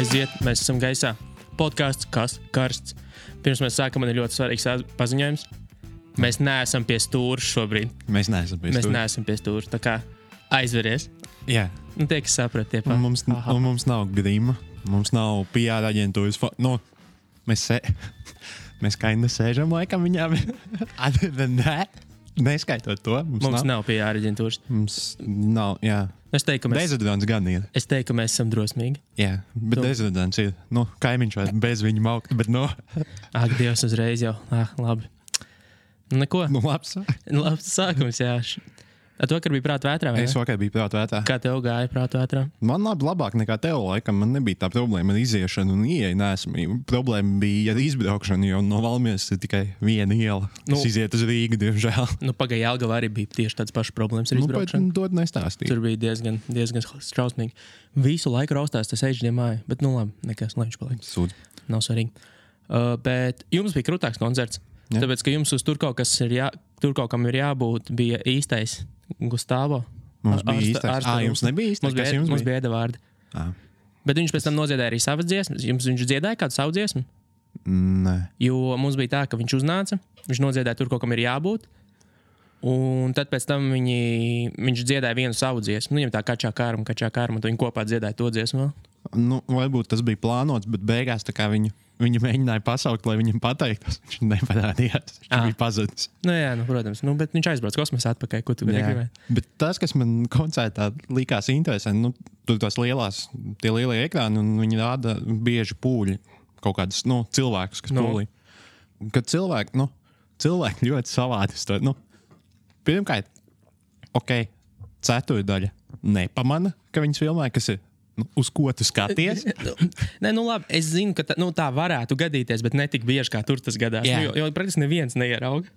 Aiziet, mēs esam gaisā. Podcasts, kas karsts. Pirms mēs sākam, man ir ļoti svarīgs paziņojums. Mēs neesam pie stūra šobrīd. Mēs neesam pie stūra. Tā kā aizveries. Jā. Nu, tie, kas saprat, tie Un mums nav grīma. Mums nav PR aģentūras. Mēs kaina sēžam laikam viņām. Neskaitot to. Mums nav PR aģentūras. Mums nav, jā. Es teiktu, Dezodorants gan ir. Es teiktu, ka mēs esam drosmīgi. Jā, bet dezodorants ir. Kaimiņš vai bez viņa maukt, bet Ak, Dievs, uzreiz jau. Labi. Neko. Labs. Labs sākums, jā. Tu vakar biji prātu vētrā, vai ne? Es vakar biju prātu vētrā. Kā tev gāja prātu vētrā? Man labāk nekā tev, laikam. Man nebija tā problēma ar iziešanu un ieeju neesmību. Problēma bija ar izbraukšanu, jo no Valmieras ir tikai viena iela, kas iziet uz Rīgu, diemžēl. Pagaidām Jelgavā arī bija tieši tāds pašs problēmas ar izbraukšanu. To nestāstīju. Tur bija diezgan strausmīgi. Visu laiku raustās tas ēžģiem bet labi, nekas, lai viņš paliek. Sūdz. Nav svarīgi. Bet jums bija krūtāks koncerts, tāpēc, ka jums uz tur kaut kam ir jābūt, bija īstais Gustavo. Mums bija īstais. Jums nebija īstais? Mums bija Edavārdi. Bet viņš pēc tam nodziedāja arī savas dziesmas. Viņš dziedāja kādu savu dziesmu? Nē. Jo mums bija tā, ka viņš uznāca, viņš nodziedāja tur kaut kam ir jābūt, un tad pēc tam viņš dziedāja vienu savu dziesmu. Viņam tā kačā kārma, un viņi kopā dziedāja to dziesmu vēl. Varbūt tas bija plānots, bet beigās tā kā viņu mēģināja pasaukt, lai viņam pateiktos. Viņš neparādījās. Viņš bija pazudis. Jā, protams. Bet viņš aizbrauc kosmosā atpakaļ. Ko tu gribēji? Bet tas, kas man koncertā likās interesanti, tur tās tie lielie ekrāni, un viņi rāda bieži pūļi. Kaut kādus cilvēkus, kas pūlī. Kad cilvēki ļoti savādi. Pirmkārt, ceturdaļa nepamana, ka viņas filmē, kas ir. Uz ko tu skaties? Nē, labi, es zinu, ka tā varētu gadīties, bet ne tik bieži, kā tur tas gadās. Jo praktiski neviens neierauga.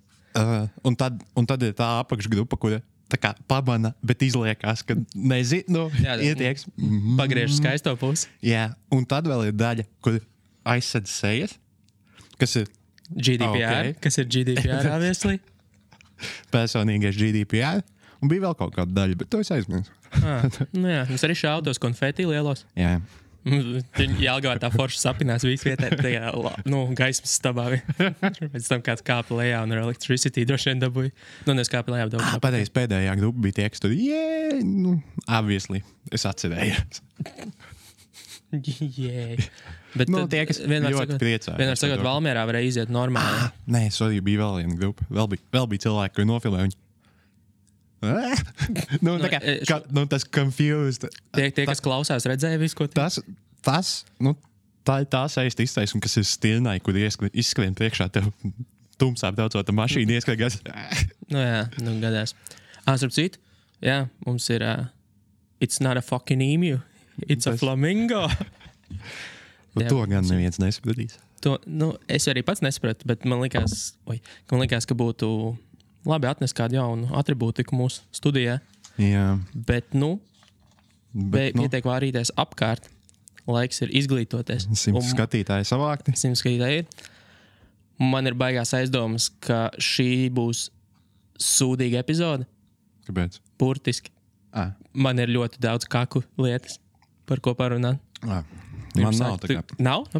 Un tad ir tā apakšgrupa, kura tā kā pamana, bet izliekās, ka nezinu, ietieks. Pagriež skaisto pusi. Jā, un tad vēl ir daļa, kur aizsedz sejas, kas ir GDPR, kas ir GDPR, obviously. Personīgais GDPR. Un bija vēl kaut kāda daļa, bet to es aizmirsu. Jā, mums arī šaudos konfeti lielos. Jā. Jelgavā tā forša sapinās visu vietē, tajā, gaismas stabā. Pēc tam kāds kāpa lejā un ar electricity droši vien dabūja. Neskāpa lejā daudz. Pēdējā grupa bija tie, kas tur, obviously, es atcerējos. Bet tie, kas ļoti priecāja. Vienmēr sakot, Valmierā varēja iziet normāli. Nē, sorry, bija vēl viena grupa. Vēl bija cilvēki, kuri nofilmē viņu. Tas confused. Tie, kas klausās, redzēja visu, ko tā ir tā saista iztaisuma, kas ir stilnai, kur izskrien priekšā tev tumsā braucot ar mašīnu, ieskrien. Gadās. Starp citu, mums ir it's not a fucking emu, it's a flamingo. To gan neviens nesapratīs. Es arī pats nesapratu, bet man likās, ka būtu labi atnest kādu jaunu atribūtiku mūsu studijā. Jā. Bet pietiek vārīties apkārt. Laiks ir izglītoties. 100 skatītāji savākti. 100 skatītāji ir. Man ir baigās aizdomas, ka šī būs sūdīga epizode. Kāpēc? Burtiski. Man ir ļoti daudz kaku lietas, par ko parunāt. Man nav tā kā. Nav?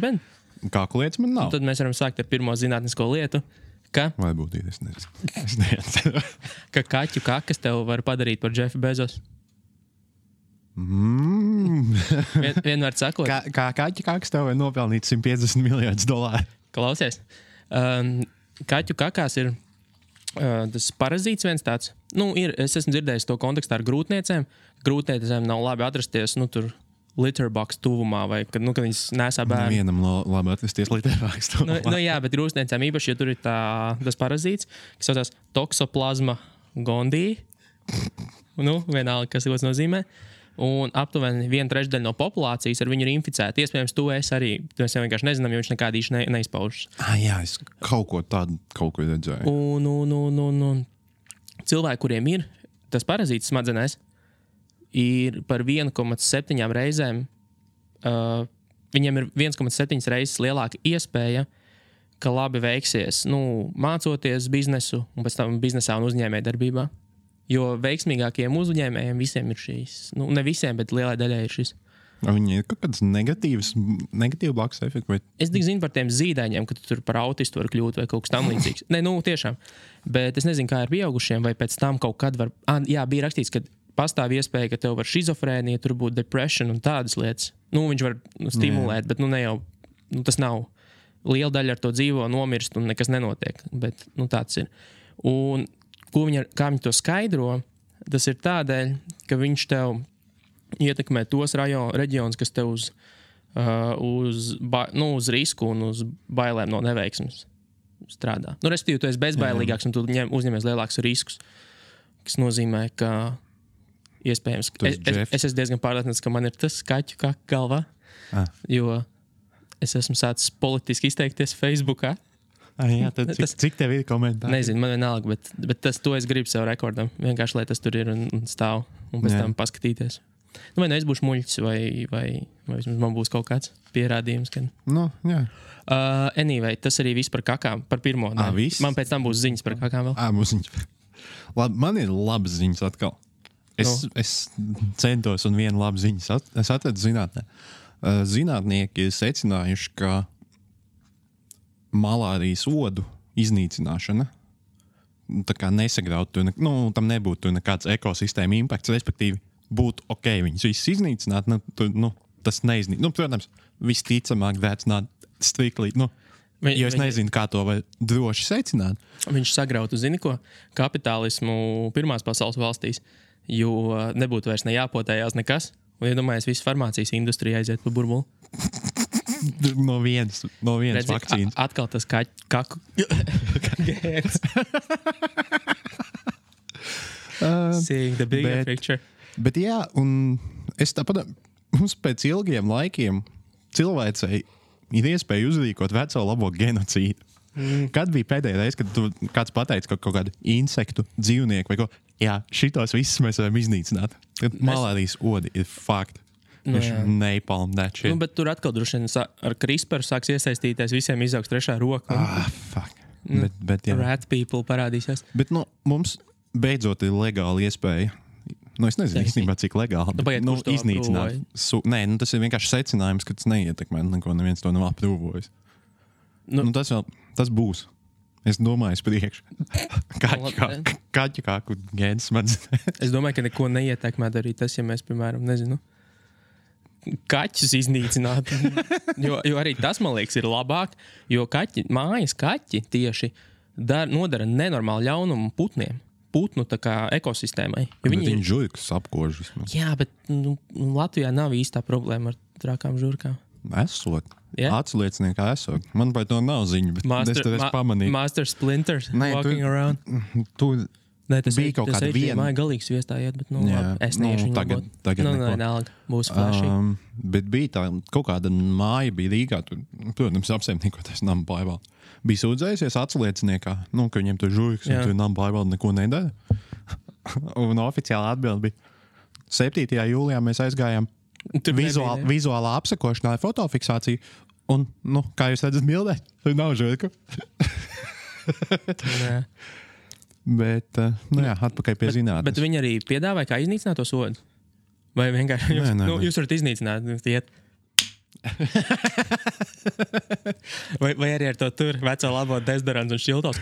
Kaku lietas man nav. Un tad mēs varam sākt ar pirmo zinātnisko lietu. Vai būtu, es nezinu. Ka kaķu kakas tev var padarīt par Jeffu Bezosu. Vienmēr sakot. Kā kaķu kakas tev var nopelnīt $150 miljardus. Klausies. Kaķu kakās ir tas parazīts viens tāds. Es esmu dzirdējis to kontekstā ar grūtniecēm. Grūtniecēm nav labi atrasties, tur litterbox tuvumā, vai kad viņas nesā bērnu. Vienam labi atrasties litterbox tuvumā. Jā, bet grūstniecēm īpaši, ja tur ir tas parazīts, kas saucās toksoplasma gondii. Vienalga, kas tas nozīmē. Un aptuveni 1/3 no populācijas ar viņu ir inficēta. Iespējams, to es arī. Mēs vienkārši nezinām, jo viņš nekādīši neizpaužas. Jā, es kaut ko redzēju. Un cilvēki, kuriem ir tas parazīts smadzenēs, ir par 1,7 reizēm, viņiem ir 1,7 reizes lielāka iespēja, ka labi veiksies, mācoties biznesu un pēc tam biznesā un uzņēmē darbībā. Jo veiksmīgākiem uzņēmējiem visiem ir šīs, ne visiem, bet lielai daļai ir šis. Viņi ir kaut kāds negatīvs blakus efekts. Vai... Es tik zinu par tiem zīdaiņiem, ka tu tur par autistu var kļūt vai kaut kas tam līdzīgs. Nē, nu, tiešām. Bet es nezinu, kā ar pieaugušiem, vai pēc tam kaut kad var... Jā, bija rakstīts, ka pastāv iespēja, ka tev var šizofrēnija, tur būtu depression un tādas lietas. Nu, viņš var stimulēt, bet nu ne jau... Nu, tas nav... Liela daļa ar to dzīvo, nomirst un nekas nenotiek. Bet, nu, tāds ir. Un kā viņi to skaidro, tas ir tādēļ, ka viņš tev ietekmē tos reģionus, kas tev uz risku un uz bailēm no neveiksmes strādā. Nu, respektīvi, tu esi bezbailīgāks un tu uzņemies lielākus riskus, kas nozīmē, ka iespējams... Es esmu diezgan pārliecināts, ka man ir tas kaķu kā galvā, jo es esmu sācis politiski izteikties Facebookā. Jā, tad cik tev ir komentāri? Nezinu, man vienalga, bet to es gribu sev rekordam. Vienkārši, lai tas tur ir un stāv un pēc tam paskatīties. Nu, vai nu es būšu muļķis, vai man būs kaut kāds pierādījums. Kad... Nu, jā. Anyway, tas arī viss par kakām, par pirmo. Man pēc tam būs ziņas par kakām vēl. Būs ziņas. Labi, man ir labas ziņas atkal. Es centos un vienu labu ziņas es atradu zinātnē. Zinātnieki ir secinājuši, ka malārijas odu iznīcināšana tā kā nesagraut, tam nebūtu nekāds ekosistēma impakts, respektīvi būtu ok, viņus visus iznīcināt, tas neiznīcināt. Nu, protams, visticamāk that's not strictly, jo es nezinu, kā to var droši secināt. Viņš sagrautu, zini ko, kapitālismu pirmās pasaules valstīs, jo nebūtu vairs nejāpotējās nekas. Un iedomājies, visu farmācijas industrija aiziet pa burbuli. No vienas vakcīnas. Atkal tas kaku gēns. Seeing the bigger picture. Bet jā, un es tāpat, mums pēc ilgiem laikiem cilvēcei ir iespēja uzrīkot veco labo genocīdu. Kad bija pēdējā reize, kad kāds pateica kaut kādu insektu, dzīvnieku vai ko, jā, šitos visus mēs varam iznīcināt. Malārijas odi ir fakti. Napalm that shit. Nu, bet tur atkal droši vien ar CRISPR sāks iesaistīties, visiem izaugs trešā roka. Fuck. Bet jā. Rat people parādīsies. Bet mums beidzot ir legāla iespēja. Es nezinu īstenībā, cik legāli. Iznīcināt. Tas ir vienkārši secinājums, ka tas neietekmē neko, neviens to nav aprūvojis. Tas būs. Es domāju, priekš. Kaķu kāku gēns smadzenē. Es domāju, ka neko neietekmētu arī tas, ja mēs, piemēram, nezinu, kaķus iznīcinātu. jo arī tas, man liekas, ir labāk, jo mājas kaķi tieši nodara nenormāli ļaunumu putniem. Putnu tā kā ekosistēmai. Viņi žurkas apkož vismaz. Jā, bet Latvijā nav īstā problēma ar trakām žurkām. Esot. Atslieciniekā esot. Man par to nav ziņu, bet es tev pamanīju. Master Splinter walking around. Tas bija kaut kāda viena. Māja galīgs viestājiet, bet es neiešu viņu labot. Tagad neko. Būs flashy. Bet bija tā, kaut kāda māja bija Rīgā, tur, protams, apsaimniekotais nama pārvalde. Bija sūdzējusies atslieciniekā, ka viņiem tur žurkas un tur nama pārvalde neko nedara. Un oficiāli atbildi bija 7. jūlijā mēs aizgājām vizuālā apsakošanā ar fotofiksāciju. Un, kā jūs redzat bildē, tur nav žurku. Bet, atpakaļ pie zinātnes. Bet viņi arī piedāvāja, kā iznīcināt to sodu? Vai vienkārši jūs varat iznīcināt, iet? vai arī ar to tur veco labo dezodorants un šķiltos?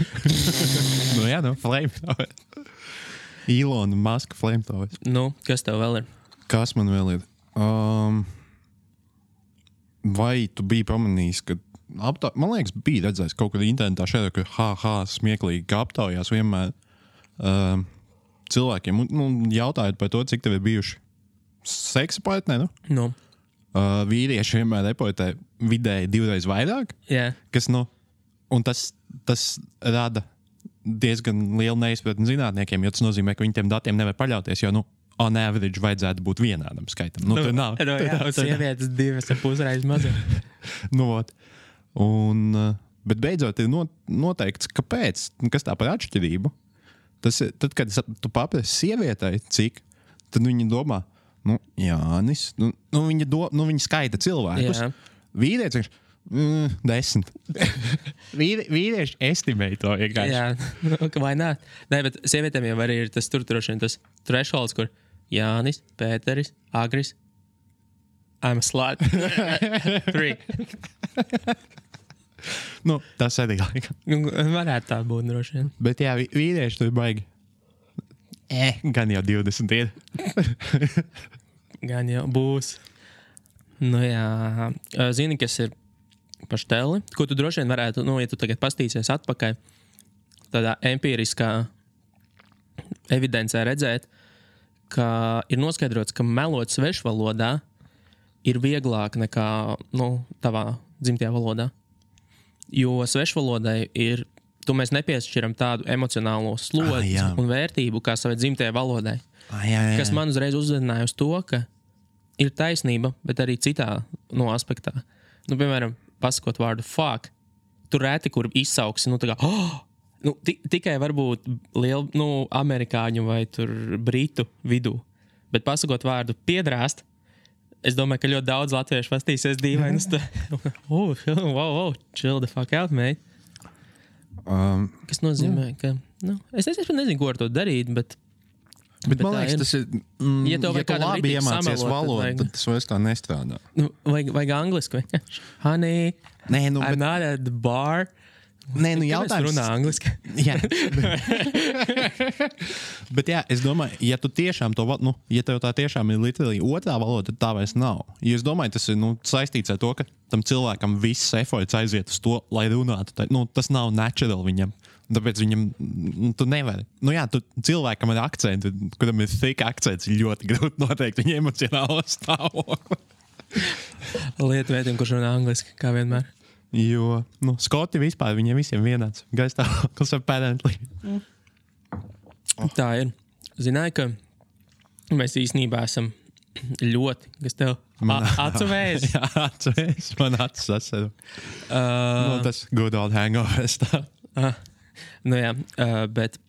Flamethrower. Elon Musk flamethrower. Kas tev vēl ir? Kas man vēl ir? Vai tu biji pamanījis, ka man liekas, bija redzējis kaut kad internetā šeit, ka smieklīgi, ka aptaujās vienmēr cilvēkiem, jautājot par to, cik tev ir bijuši seksa partneri, vīrieši vienmēr reportē vidēji 2 reizes vairāk, kas, un tas rada diezgan lielu neizpratni zinātniekiem, jo tas nozīmē, ka viņi tiem datiem nevar paļauties, jo, on average vajadzētu būt vienādam skaitam. Tur nav. Sievietes 2,5 reizes mazāk. Bet beidzot ir noteikts, kāpēc, kas tā par atšķirību. Tad, kad tu paprasi sievietei, cik, tad viņa domā, Jānis, viņa skaita cilvēkus. Jā. Vīrietis, 10. Vīrieši estimē to vienkārši. Jā, vai nē? Nē, bet sievietēm jau arī ir tas tur droši vien tas thresholds, kur Jānis, Pēteris, Agris. I'm a slut. 3. Nu, tas arī laikam. Varētu tā būt droši vien. Bet jā, vīrieši tur baigi. Gan jau 20 ir. Gan jau būs. Nu jā. Zini, kas ir pašteli? Ko tu droši vien varētu, ja tu tagad pastīsies atpakaļ, tādā empiriskā evidencē redzēt, ka ir noskaidrots, ka melot svešvalodā ir vieglāk nekā tavā dzimtajā valodā. Jo svešvalodai mēs nepiešķiram tādu emocionālo slodzi un vērtību kā savai dzimtajai valodai. Kas man uzreiz uzzināja uz to, ka ir taisnība, bet arī citā aspektā. Piemēram, pasakot vārdu fuck, tur reti, kur izsauksi, tikai varbūt lielu, amerikāņu vai tur britu vidū. Bet pasakot vārdu piedrāst, es domāju, ka ļoti daudz latviešu pastīsies dīvainus. Chill the fuck out, mate. Kas nozīmē, ka... es nezinu, ko ar to darīt, bet man liekas, tas ir... Ja tu labi iemācies valodu, tad tas vairs tā nestrādā. Vajag angliski. Honey, I'm not at the bar. Jautājums... runā angliski. Jā. Bet jā, es domāju, ja tu tiešām to... ja tev tā tiešām ir literally otrā valoda, tad tā vairs nav. Jo es domāju, tas ir saistīts ar to, ka tam cilvēkam viss efforts aiziet uz to, lai runātu. Tas nav natural viņam. Tāpēc viņam, tu nevari. Tu cilvēkam ar akcentu, kuram ir thick akcents, ir ļoti grūti noteikt viņa emocionālo stāvokli. Lietuvietim, kurš runā angliski, kā vienmēr. Jo, Skoti vispār, viņiem visiem vienāds. Gaistāvoklis apparently. Tā ir. Zināju, ka mēs īstenībā esam ļoti, kas tev acu vēs. Jā, acu vēs. Man acu sasaru. Tas good old hangovers tā. Bet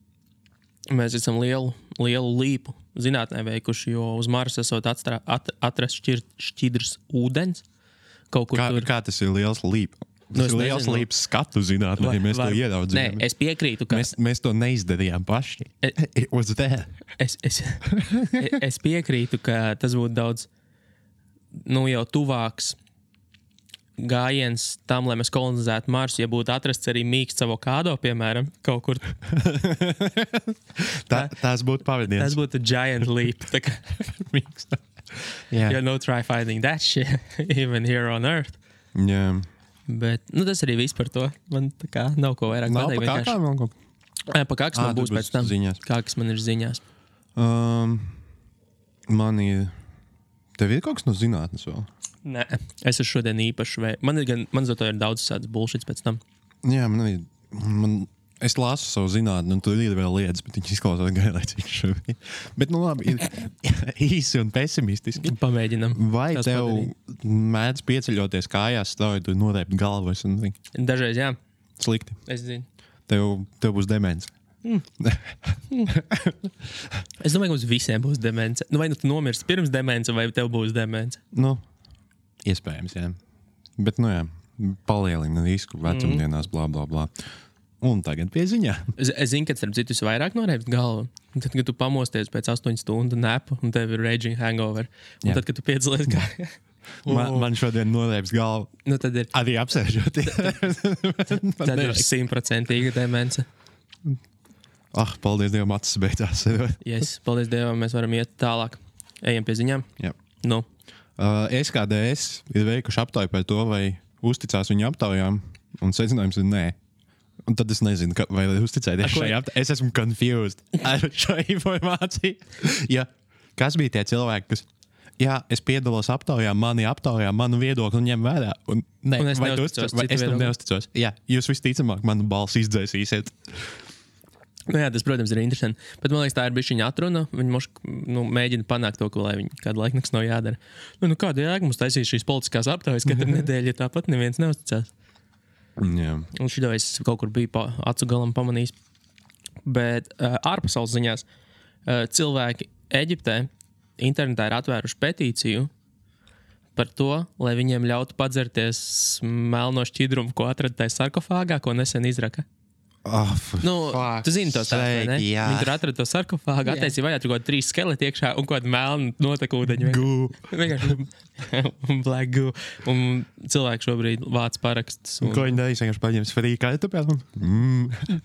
mēs esam lielu līpu zinātnē veikuši, jo uz Marsa esot atrast šķidrs ūdens. Kaut kur tur. Kā tas ir liels līpa? Tas ir liels līps skatu zinātnē, mēs to ieraudzījām. Nē, es piekrītu, ka... Mēs to neizdarījām paši. It was there. Es piekrītu, ka tas būtu daudz jau tuvāks gājiens tam, lai mēs kolonizētu Marsu, ja būtu atrasts arī mīksts avokādo, piemēram, kaut kur. Tās būtu pavadiens. Tas būtu giant leap. Mīksts. Yeah, no try finding that shit, even here on Earth. Jā. Bet, tas arī viss par to. Man tā kā nav ko vairāk pateikt. Nav pa kākām vēl kaut? Pa kāks man būs pēc tam. Ziņās. Kāks man ir ziņās. Man ir... Tev ir kaut kas no zinātnes vēl? Nē, es esmu šodien īpaši man zato ir daudz sāds bullshits pēc tam. Jā, es lasu savu zinātni, un tur ir vēl lietas, bet viņš izklausās gailēcīgi šobrīd. Bet, labi, ir īsi un pesimistiski. Pamēģinam. Vai tev mēdz pieceļoties kājās, strauji tur norēpt galvu? Dažreiz, jā. Slikti. Es zinu. Tev būs demence. Es domāju, ka mums visiem būs demence. Vai tu nomirsti pirms demence, vai tev būs demence? Iespējams, jā. Bet, jā, palielina risku vecumdienās, blā, blā, blā. Un tagad pie ziņā. Es zinu, ka starp citu vairāk norēpt galvu. Tad, kad tu pamosties pēc 8 stundu nepu un tev ir raging hangover. Un tad, kad tu piedzalies gājā. Man šodien norēps galvu. Tad ir. Arī apsēžoties. Tad ir 100% demence. Paldies Dievam, acis beidzās. Yes, paldies Dievam, mēs varam iet tālāk. Ejam pie ziņām. Jā. SKDS ir veikuši aptauju par to, vai uzticās viņu aptaujām, un secinājums ir nē. Un tad es nezinu, vai uzticēties šai aptaujai. Es esmu confused ar šo informāciju. Ja, kas bija tie cilvēki, kas... Jā, es piedalos aptaujā, manu viedokli un ņem vērā. Un es tam neusticos. Jā, jūs visticamāk manu balsi izdzēsīsiet. Tas, protams, ir interesanti. Bet man liekas, tā ir bišķiņa atruna. Viņi mēģina panākt to, lai viņi kādu laiku nekas nav jādara. Kāda jēga mums taisīs šīs politiskās aptaujas katru nedēļu, ja tāpat neviens neusticās. Jā. Un šito es kaut kur biju acu galam pamanījis. Bet ārpasaules ziņās cilvēki Eģiptē internetā ir atvēruši petīciju par to, lai viņiem ļautu padzerties melno šķidrumu, ko atrada tajā sarkofāgā, ko nesen izraka. Tu zini to stāstu, vai ne? Viņi tur atrada to sarkofāgu, attaisīja vaļā, tur kaut 3 skeleti iekšā un kaut kāda melna notekūdeņa. Vienkārši black goo. Un cilvēki šobrīd vāc parakstus. Ko viņi darīs? Vienkārši paņems free kartupēlu?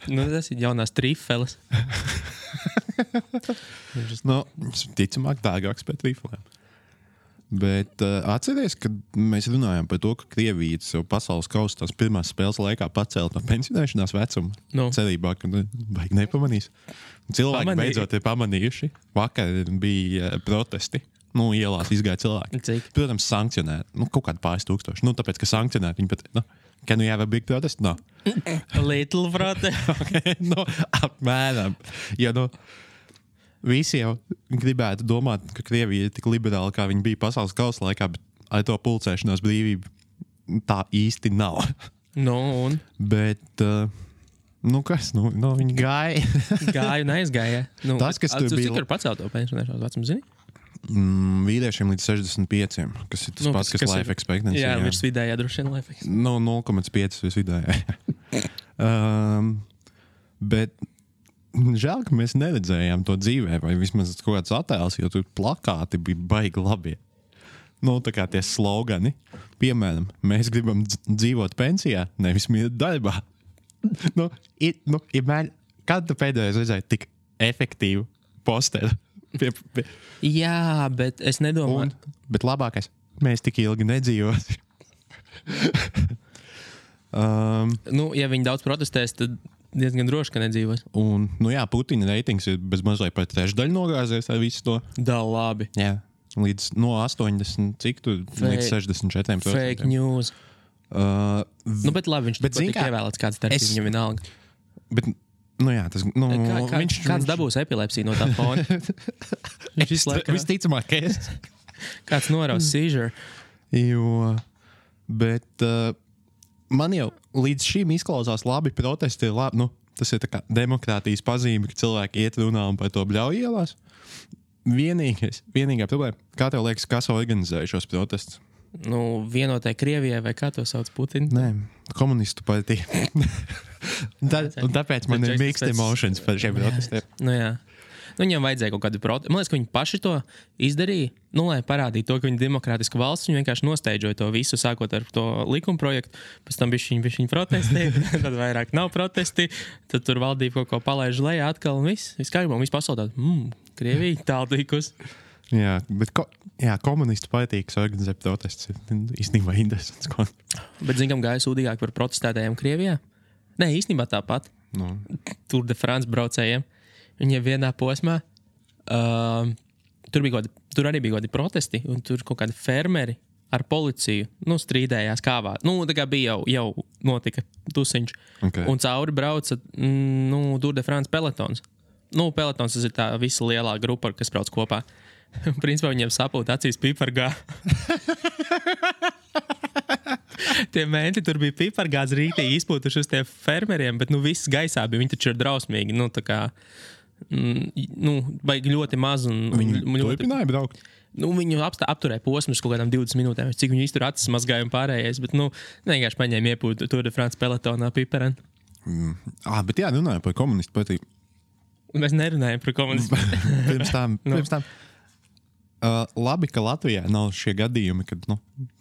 Tas ir jaunās trifeles. Ticamāk dārgāks pēc trifelēm. Bet atceries, kad mēs runājām par to, ka Krievija sev pasaules kausa tās pirmās spēles laikā pacēla no pensionēšanās vecuma. Cerībā, ka baigi nepamanīs. Cilvēki beidzot ir pamanījuši. Vakar bija protesti. Ielās izgāja cilvēki. Cik? Protams, sankcionēt. Kaut kādi pāris tūkstoši. Tāpēc, ka sankcionēt viņi pat... Can we have a big protest? No. Little protest. Okay, apmēram. Ja, visi jau gribētu domāt, ka Krievija ir tik liberāla, kā viņa bija pasaules kausa laikā, bet ar to pulcēšanās brīvību tā īsti nav. Un? Bet, kas? Viņi gāja. Gāja un aizgāja. Tas, kas tur bija... Cik ir pacelt to pensionēšanās vecumu, zini? Vīriešiem līdz 65, kas ir tas pats, kas life expectancy. Jā, virs vidējā droši vien life 0,5 expectancy. virs vidējā. Bet žēl, ka mēs neredzējām to dzīvē, vai vismaz kaut kāds attēls, jo tur plakāti bija baigi labi. Tā kā tie slogani. Piemēram, mēs gribam dzīvot pensijā, nevis mirt darbā. Kad tu pēdējais redzēji tik efektīvu posteru? Jā, bet es nedomāju. Bet labākais, mēs tik ilgi nedzīvosim. Ja viņi daudz protestēs, tad diezgan droši, ka nedzīvos. Un, Putina reitings ir bez mazliet par trešdaļu nogāzies ar visu to. Da, labi. Jā, līdz 80, cik tu? Līdz 64%. Fake news. Bet labi, viņš tik ievēlēts kāds starpības, viņam vienalga. Bet, kāds dabūs epilepsiju no tā fona? Viņš izslēgā. Visticamāk, es. Kāds noraus seizure. Bet man jau līdz šim izklausās labi, protesti ir labi. Tas ir tā kā demokrātijas pazīme, ka cilvēki iet runā un par to bļauj ielās. Vienīgā problēma, kā tev liekas, kas organizēja šos protestus? Vienotai Krievijai vai kā to sauc Putina? Nē, komunistu partija. Un tāpēc man ir mixed emotions par šiem protestiem. Jā. Viņam vajadzēja kaut kādu protestu. Man liekas, ka viņi paši to izdarīja, lai parādītu to, ka viņi ir demokrātiska valsts. Viņi vienkārši nosteidžoja to visu, sākot ar to likuma projektu. Pēc tam viņi protestēja, tad vairāk nav protesti. Tad tur valdība kaut ko palaiž lejā atkal un viss. Viss kārībā, un viss pasaulē Krievija tāltīkus. Jā, bet komunistu partija, kas organizē protestus, ir īstenībā interesants. Bet kam gāja sūdīgāk par protestētājiem Krievijā? Nē, īstenībā tāpat. Tour de France braucējiem. Viņiem vienā posmā tur arī bija kādi protesti, un tur kaut kādi fermeri ar policiju strīdējās kāvā. Tā kā bija jau notika tusiņš. Okay. Un cauri brauca Tour de France pelotons. Pelotons tas ir tā visa lielā grupa, kas brauc kopā. Principā viņiem sapūta acīs pipargā. Tie menti tur bija pipargāds rītī izpūtuši uz tiem fermeriem, bet viss gaisā bija. Viņi taču ir drausmīgi. Tā kā baigi ļoti maz. Viņi turpināja braukt? Viņu apturēja posmus kaut kādām 20 minūtēm. Cik viņi iztur acis mazgāja un pārējais. Bet vienkārši paņēma iepūt Tour de France pelotonā pipareni. Bet runājam par komunistu partiju. Mēs nerunājam par komunistu. Pirms tam. Labi, ka Latvijā nav šie gadījumi, kad,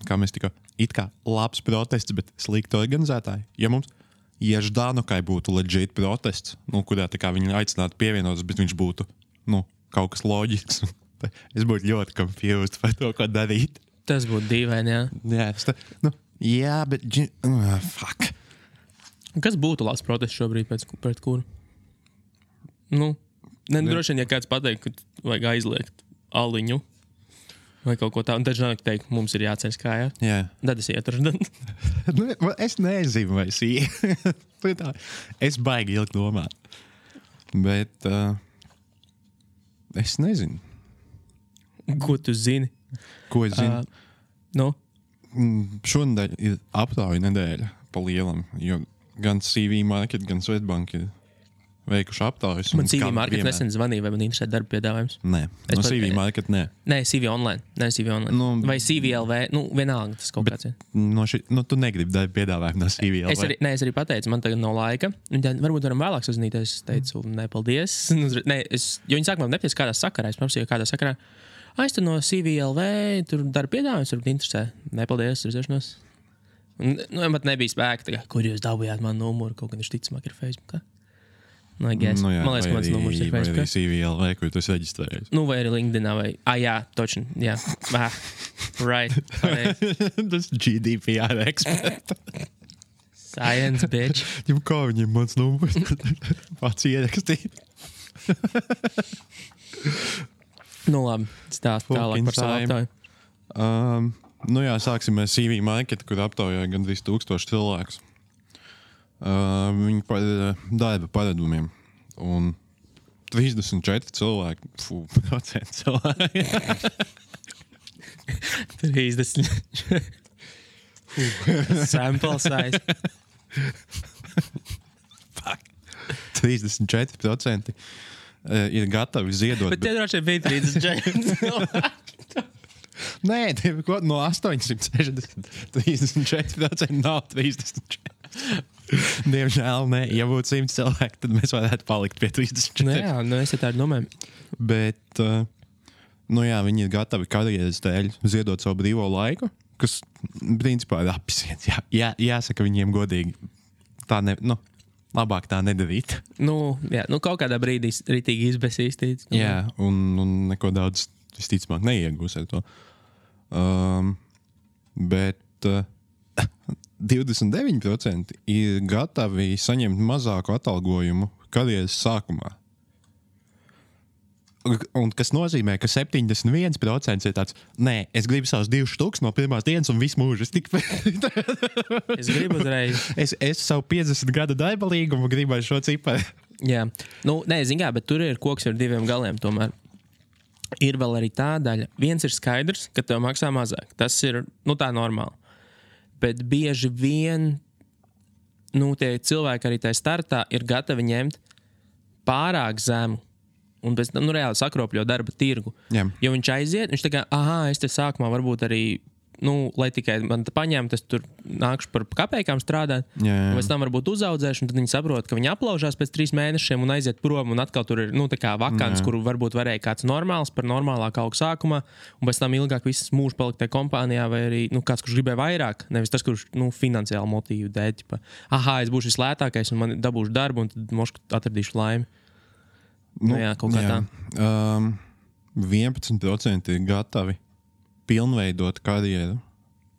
kā mēs tikko, it kā labs protests, bet slikti organizētāji. Ja mums Ždanokai būtu legit protests, kurā tā kā viņi aicinātu pievienotas, bet viņš būtu, kaut kas loģisks. Es būtu ļoti confused par to, ko darīt. Tas būtu dīvaini, jā. Jā, bet... fuck. Kas būtu labs protests šobrīd pret kuru? Droši vien, ja kāds pateikt, ka vajag aizliegt aliņu vai kaut ko tādu. Un tad žēl teikt, mums ir jāceļ kājā. Jā. Tad es ietu. Es nezinu, vai es ietu. Es baigi ilgi domāt. Bet es nezinu. Ko tu zini? Ko es zinu? Šonadēļ ir aptauja nedēļa pa lielam, jo gan CV Market, gan Swedbank ir veikuši aptaujas. Man CV Market nesen zvanīja, vai man interesē darba piedāvājums. Nē, no CV Market nē. Nē, CV online. Vai CVLV, vienalga tas kaut kāds. Tu negribi darba piedāvājumu no CVLV. Es arī pateicu, man tagad nav laika. Varbūt varam vēlāk sazināties. Es teicu, nē, paldies. Jo viņi sākumā nepateica, kādā sakarā. Es prasīju, kādā sakarā. Es tur no CVLV, tur darba piedāvājums, varbūt interesē. Nē, paldies, redzēšanos. Man nebija spēka, kur jūs dabūjāt manu numuru, kaut gan viņš ticamāk ir Facebookā. Man liekas, ka mans numurs ir Facebookā. Vai arī CVLV, kur tu esi reģistrējies. Vai arī LinkedInā, vai... jā, točni, jā. Right. Tas GDPR expert. Science, bitch. Kā viņiem mans numurs? Pats ierakstīja. Labi, stāst tālāk par savu aptauju. Sāksim ar CV Market, kur aptaujāja gandrīz 1000 cilvēkus. Viņi par darba paradumiem. Un 34 cilvēki. Procenti cilvēki. 30. Sample size. 34% ir gatavi ziedot. Bet tie droši bija 34. Nē, no 860 34% nav 34. Diemžēl nē. Ja būtu 100 cilvēki, tad mēs varētu palikt pie 34. Es tādu domāju. Bet, viņi ir gatavi karjeras dēļ ziedot savu brīvo laiku, kas, principā, ir apsiets. Jāsaka viņiem godīgi. Tā labāk tā nedarīt. Kaut kādā brīdī ritīgi izbesīstīts. Jā, un neko daudz visticamāk neiegūs ar to. Bet 29% ir gatavi saņemt mazāku atalgojumu karjeras sākumā. Un kas nozīmē, ka 71% ir tāds, nē, es gribu savus 2 štuks no pirmās dienas un visu mūžu. Es gribu uzreiz. Es savu 50 gadu darba līgumu gribu ar šo ciparu. Jā. Bet tur ir koks ar 2 galiem tomēr. Ir vēl arī tā daļa. Viens ir skaidrs, ka tev maksā mazāk. Tas ir, tā normāli. Bet bieži vien, tie cilvēki arī tajā startā ir gatavi ņemt pārāk zemu un pēc tam, reāli sakropļo darba tirgu. Jā. Jo viņš aiziet, viņš tā kā, es te sākumā varbūt arī, lai tikai man paņemtu, es tur nākšu par kapēkām strādāt, un pēc tam varbūt uzaudzēšu, un tad viņi saprot, ka viņi aplaužās pēc 3 mēnešiem un aiziet prom, un atkal tur ir, tā kā vakants, kuru varbūt varēja kāds normāls par normālāku augu sākumā, un pēc tam ilgāk viss mūžs palikt tajā kompānijā, vai arī, kāds, kurš gribēja vairāk, nevis tas, kurš, finansiāli motīvu dēļ, es būšu vislētākais, un man dabūšu darbu, un tad mošku atradīšu laimi. Kaut kā tā. 11% ir gatavi pilnveidot karjeru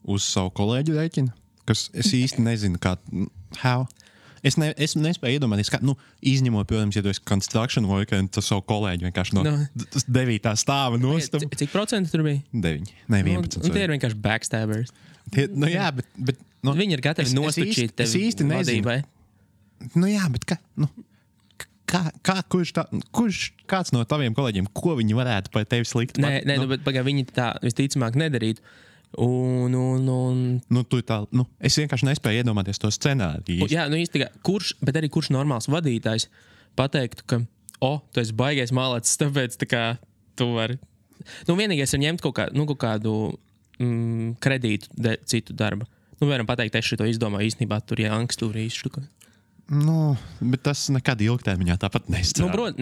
uz savu kolēģu rēķinu, kas es īsti nezinu, how. Es nespēju iedomāties, kā, izņemot, protams, ja tu esi construction worker, un tu savu kolēģi vienkārši no 9. stāva nostum. Cik procenti tur bija? 9, ne 11. Tie ir vienkārši backstabbers. Bet viņi ir gatavi nostačīt tevi īsti vadībai. Bet kāds no taviem kolēģiem, ko viņi varētu par tevi slikt? Bet viņi tā visticamāk nedarītu. Es vienkārši nespēju iedomāties to scenāriju. Bet arī kurš normāls vadītājs pateiktu, ka tu esi baigais mālēts, tāpēc tu vari. Vienīgais ir ņemt kaut kādu kredītu citu darba. Varam pateikt, es šito izdomāju, īstenībā tur angstūri izštuka. Bet tas nekad ilgtermiņā tāpat nestrādā.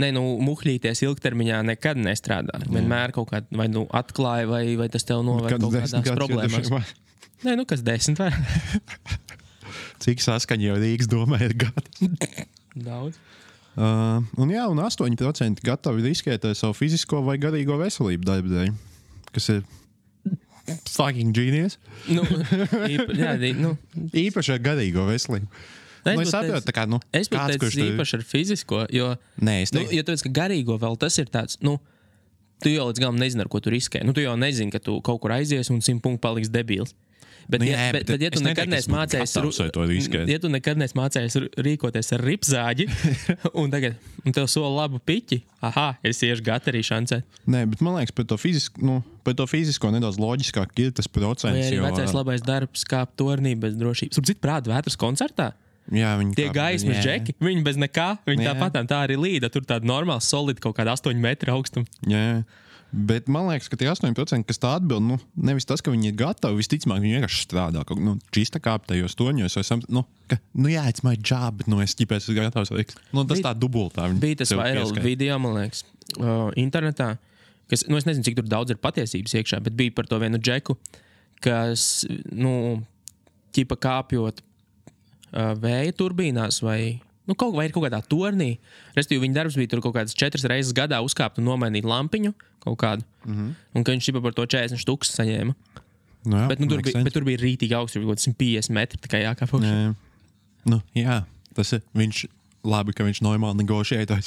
Muhļīties ilgtermiņā nekad nestrādā. Vienmēr kaut kādā vai atklāja, vai tas tev noved kaut kādās problēmās. Kas 10 var? Cik saskaņa jau Rīgas domē ir gadi? Daudz. Un 8% gatavi riskēt ar savu fizisko vai garīgo veselību darba dēļ, kas ir fucking genius. Īpaši ar garīgo veselību. Es saprotu, es pat teicu īpaši ar fizisko, jo tu teici, ka garīgo vēl tas ir tāds, tu jau līdz galam nezini, ar ko tu riskē. Tu jau nezini, ka tu kaut kur aizies un 100 punktu paliks debils. Bet ja tu nekad neesi mācējies rīkoties ar ripzāģi un tev sola labu piķi, es iešu gati arī šancēt. Bet man liekas, par to fizisko nedaudz loģiskāk ir tas procents. Vai arī vecais labais darbs kāp tornī bez drošības. Tur citu prātu vētras koncertā? Jā, viņi tie gaismas džeki, viņi bez nekā, viņi tāpatām tā arī līda. Tur tāda normāla, solida kaut kāda 8 metru augstuma. Jā. Bet man liekas, ka tie 8%, kas tā atbild, nu, nevis tas, ka viņi ir gatavi, visticamāk, viņi vienkārši strādā kaut kā, čista kāptajos toņos, vai jā, it's my job, bet, es ķipēs esmu gatavs veikt. Tas tā dubultā. Bija tas viral video, man liekas, internetā, kas, es nezinu, cik tur daudz ir patiesības iekšā, bet bija par to vienu džeku, kas, ķipa kāpjot vēja turbīnās vai... kaut kādā tornī. Restīvi, viņa darbs bija tur kaut kādas 4 reizes gadā uzkāpt un nomainīt lampiņu kaut kādu. Un ka viņš par to 40 štukas saņēma. Jā, bet tur bija rītīgi augsts, kaut 150 metri, tā kā jākāp augšā. Jā, tas ir viņš... Labi, ka viņš normāli negošēja.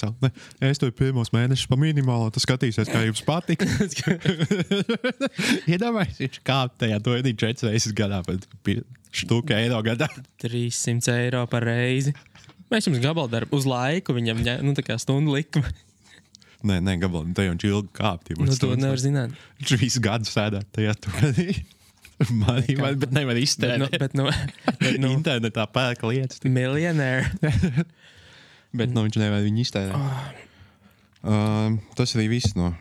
Es tev pirmos mēnešus pa minimālo, tu skatīsies, kā jums patīk. Iedomājies, viņš kāp tajā tornī 4 reizes gadā, bet štuka eiro gadā. 300 eiro par reizi. Mēs jums gabaldarbu uz laiku, viņam tā kā stundu likuma. Nē, gabaldarbu, te jau viņš ilgi kāpt. To nevar zināt. Viņš visu gadu sēdāt tajā tornī. Bet nevar iztērēt. Bet internetā pērk lietas. Millionaire. Bet viņš nevar viņu iztērēt. Tas arī viss no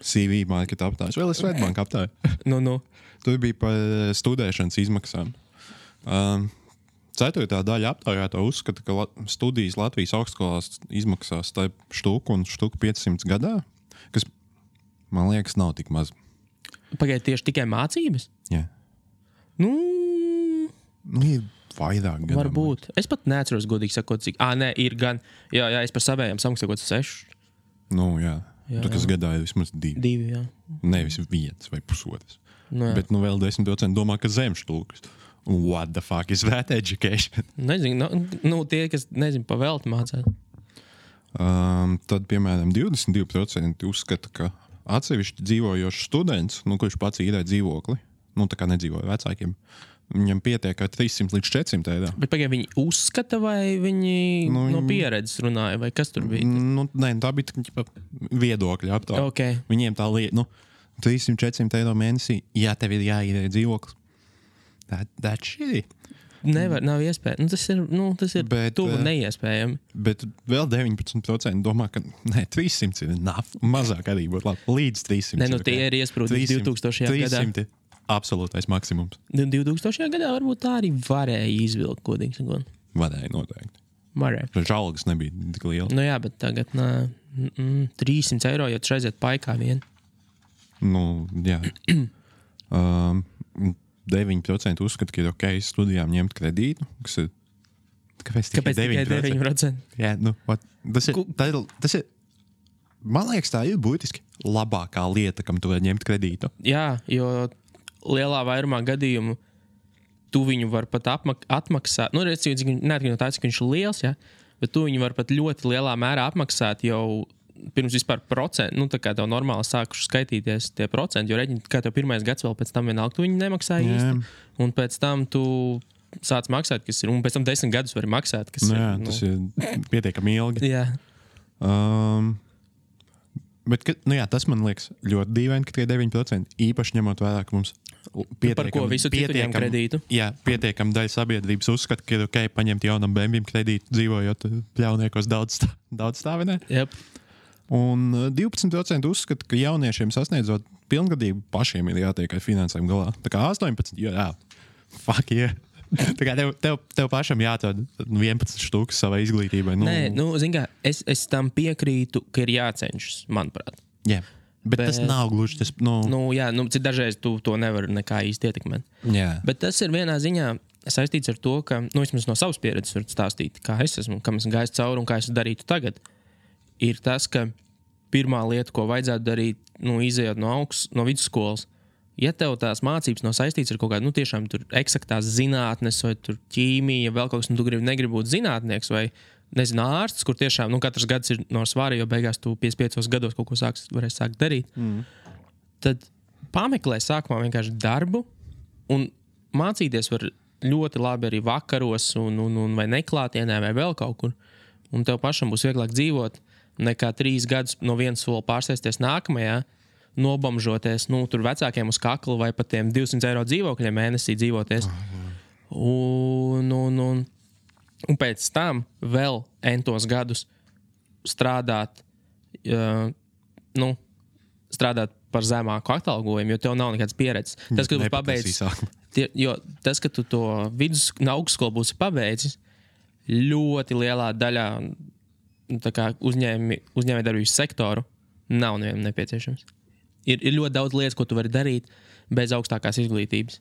CV marketa aptājas. Vēl es Svetbanka aptāju. Tur bija par studēšanas izmaksām. 4. daļa aptaujāto uzskata, ka studijas Latvijas augstskolās izmaksās tā štuku un štuku 500 gadā, kas, man liekas, nav tik maz. Pagaid, tieši tikai mācības? Jā. Ir vairāk gadam. Varbūt. Es pat neatceros, godīgi sakot, cik. Nē, ir gan. Jā, es par savējām samaksākot 6. Jā. Tu, kas gadā ir vismaz 2. 2, jā. Nevis 1 vai 1,5. Bet vēl 10% domā, ka zem štukas. What the fuck is that education? Nezinu, tie, kas nezinu, pavēlti mācās. Tad, piemēram, 22% uzskata, ka atsevišķi dzīvojošs students, kurš pats īrē dzīvokli, tā kā nedzīvoja vecākiem, viņam pietiek ar 300 līdz 400 eiro. Bet pagaid, viņi uzskata vai viņi no pieredzes runāja, vai kas tur bija? Nē, tā bija viedokļa aptāja. Okay. Viņiem tā lieta, 300-400 eiro mēnesī, ja tev ir jāīrē dzīvoklis. That shitty. Nevar, nav iespēja. Tas ir tuvu neiespējami. Bet vēl 19% domā, ka 300 ir enough. Mazāk arī būtu labi. Līdz 300. Tie ir iesprūdi 2000. gadā. 300 ir absolūtais maksimums. 2000. gadā varbūt tā arī varēja izvilkt, godīgi sakot. Varēja noteikti. Varēja. Taču algas nebija tik liela. Jā, bet tagad 300 eiro, ja tu aiziet paikā vien. Jā. 9% uzskata, ka ir ok studijām ņemt kredītu, kas ir... Kāpēc tikai 9%? Jā, tas ir... Man liekas, tā ir būtiski labākā lieta, kam tu var ņemt kredītu. Jā, jo lielā vairumā gadījumu tu viņu var pat atmaksāt. Neatkarīgi no tā, cik viņš ir liels, ja? Bet tu viņu var pat ļoti lielā mērā apmaksāt jau pirms vispār procentu, tā kā tev normāli sākuši skaitīties tie procenti, jo reģini, kā tev pirmais gads vēl pēc tam vienalga, tu viņu nemaksāji īsti, un pēc tam tu sāc maksāt, kas ir, un pēc tam 10 gadus vari maksāt, kas ir. Tas ir pietiekami ilgi. Jā. Bet, tas man liekas ļoti dīvaini, ka tie 9%, īpaši ņemot vērā, ka mums par ko visu citu ņem kredītu. Jā, pietiekam daļa sabiedrības uzskata, ka ir ok paņemt jaunam bēmbim kredītu, dzīvojot pļauniekos daudz stāvinē. Yep. Un 12% uzskata, ka jauniešiem sasniedzot pilngadību pašiem ir jātiek ar finansēm galā. Tā kā 18%, fuck yeah. Tā kā tev pašam jāatrod 11 štukas savai izglītībai. Nē, zin kā, es tam piekrītu, ka ir jācenšas, manuprāt. Jā, bet tas nav gluži tas, cik dažreiz tu to nevar nekā īsti ietekmēt. Jā. Bet tas ir vienā ziņā saistīts ar to, ka, vismaz no savas pieredzes var stāstīt, kā es esmu, kam esmu gājis cauri un kā es darītu tagad. Ir tas, ka pirmā lieta, ko vajadzētu darīt, izejot no vidusskolas, ja tev tās mācības nav saistīts ar kaut kādu, tiešām tur eksaktās zinātnes vai tur ķīmija, vēl kaut kas, tu negribi būt zinātnieks vai, nezinu, ārsts, kur tiešām, katrs gads ir no svāra, jo beigās tu 55 gados kaut ko varēsi sākt darīt, tad pameklē sākumā vienkārši darbu un mācīties var ļoti labi arī vakaros un vai neklātienē vai vēl kaut kur, un tev pašam būs vieglāk dzīvot, nekā 3 gadus no vienas soli pārsēsties nākamajā, nobamžoties, tur vecākiem uz kakla vai pat tiem 200 eiro dzīvokļiem mēnesī dzīvoties. Un Un pēc tam vēl entos gadus strādāt, strādāt par zemāku atalgojumu, jo tev nav nekādas pieredzes. Tas, ka tu pabeidzis, tas, ka tu to augstskolu būsi pabeidzis, ļoti lielā daļā uzņēmējdarbības sektoru nav nevienam nepieciešams. Ir ļoti daudz lietas, ko tu vari darīt bez augstākās izglītības.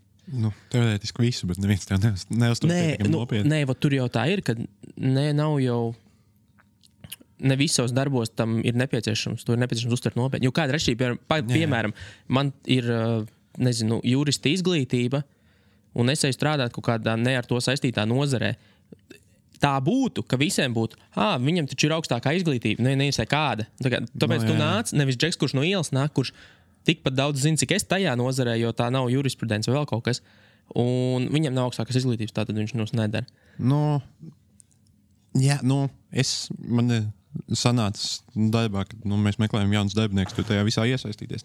Teorētiski visu, bet neviens tev neuztur pietiekami nopietni. Nē, tur jau tā ir, ka nav jau ne visos darbos tam ir nepieciešams. To ir nepieciešams uztvert nopietni. Jo kāda ir atšķirība? Piemēram, man ir, jurista izglītība, un es eju strādāt kaut kādā ne ar to saistītā nozarē. Tā būtu, ka visiem būtu, viņam taču ir augstākā izglītība, nevisai kāda. Tāpēc tu nāc, nevis džeks, kurš no ielas nāk, kurš tikpat daudz zina, cik es tajā nozarē, jo tā nav jurisprudence vai vēl kaut kas. Un viņam nav augstākas izglītības, tātad viņš mums nedara. Man sanāca darbā, kad mēs meklējam jaunus darbiniekus, tu tajā visā iesaistīties.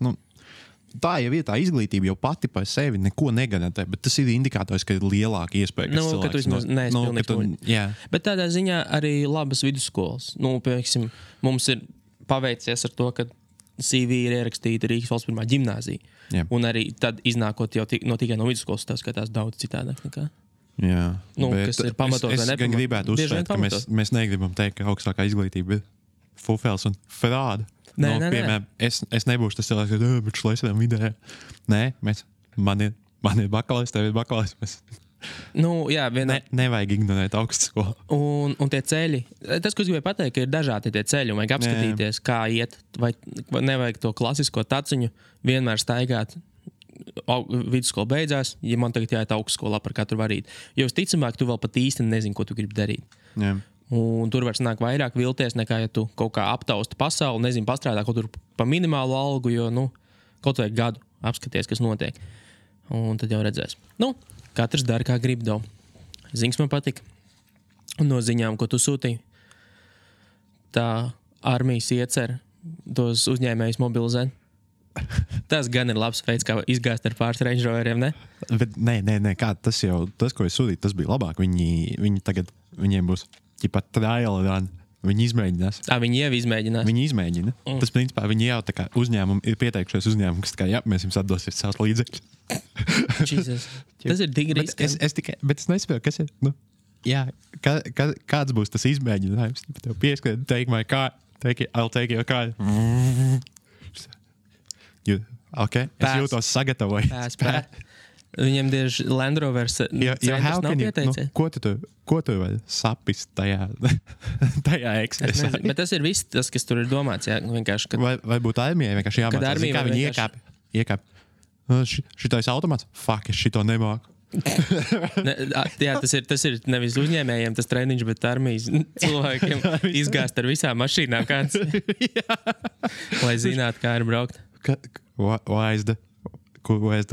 Tā jau ir tā izglītība jau pati par sevi neko negarantē, bet tas ir indikators, ka ir lielāka iespēja, ka cilvēks... Ka tu vismaz neesi pilnīgi. Bet tādā ziņā arī labas vidusskolas. Piemēram, mums ir paveicies ar to, ka CV ir ierakstīta Rīgas valsts pirmā ģimnāzija. Jā. Un arī tad iznākot jau tikai no vidusskolas, tas skatās daudz citādāk nekā. Jā, kas ir pamatot vai nepamatot. Es gan gribētu uzsvērt, ka mēs negribam teikt, ka augstākā izglītība ir fufels un frāda. Piemēram, es nebūšu tas cilvēks, bet šlaisēm vidē. Nē, man ir bakalais, tev ir bakalais. Nevajag ignorēt augstskolu. Un tie ceļi, tas, ko es gribēju pateikt, ka ir dažādi tie ceļi, un vajag apskatīties, kā iet, vai nevajag to klasisko taciņu vienmēr staigāt. Vidusskola beidzās, ja man tagad jāiet augstskolā par katru varīt. Jo visticamāk, tu vēl pat īsti nezini, ko tu gribi darīt. Jā. Un tur var sanākt vairāk vilties, nekā ja tu kaut kā aptausti pasauli, nezinu, pastrādā kaut tur pa minimālu algu, jo, kaut vai gadu apskaties, kas notiek. Un tad jau redzēs. Katrs dara, kā grib davu. Ziņas man patika. Un no ziņām, ko tu sūtīji, tā armijas iecer tos uzņēmējus mobilizēt. Tas gan ir labs veids, kā izgāzt ar pāris Range Roveriem, ne? Bet nē, kā tas, ko es sūtīju, tas bija labāk. Viņi tagad, viņiem būs trial run. Viņi izmēģinās. Viņi jau izmēģinās. Viņi izmēģina. Tas, principā, viņi jau tā kā uzņēmumi ir pieteikušies uzņēmumu, kas tā kā, mēs jums atdosiet savus līdzekļus. Jesus. Tas ir tik risks. Bet es nesaprotu, kas ir. Kāds būs tas izmēģinājums? Tev pieskrien, take my car, I'll take your car. Okay. Es jūtos sagatavoju. Pēc. Viņiem tieši Land Rovers centrs nav pieteicies. Ko tu vēl sapist tajā ekspresā? Bet tas ir viss, tas, kas tur ir domāts. Jā, vienkārši, vai būtu armijai vienkārši jāmācās, kā viņi iekāp. Šitais automāts? Fuck, es šito nemāku. Tas ir nevis uzņēmējiem tas treniņš, bet armijas cilvēkiem izgāzt ar visām mašīnām kāds. Lai zinātu, kā ir braukt. Why is the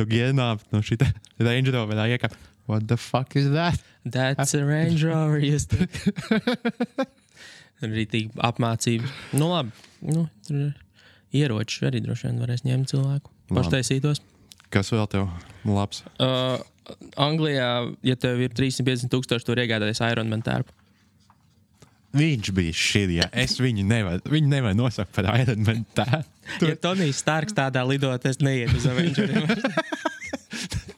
gear up? Šita Range Rover iekāp. What the fuck is that? That's a Range Rover. Rītīgi apmācības. Labi. Tur ieroči arī droši vien varēs ņemt cilvēku. Paštaisītos. Kas vēl tev labs? Anglijā, ja tev ir 350,000, tur iegādāties Ironman tērpu. Viņš bija šī, viņu nevar nosaukt par Ironman tērpu. Ja Tonijs Starks tādā lidot, es neiet uz Avengeriem.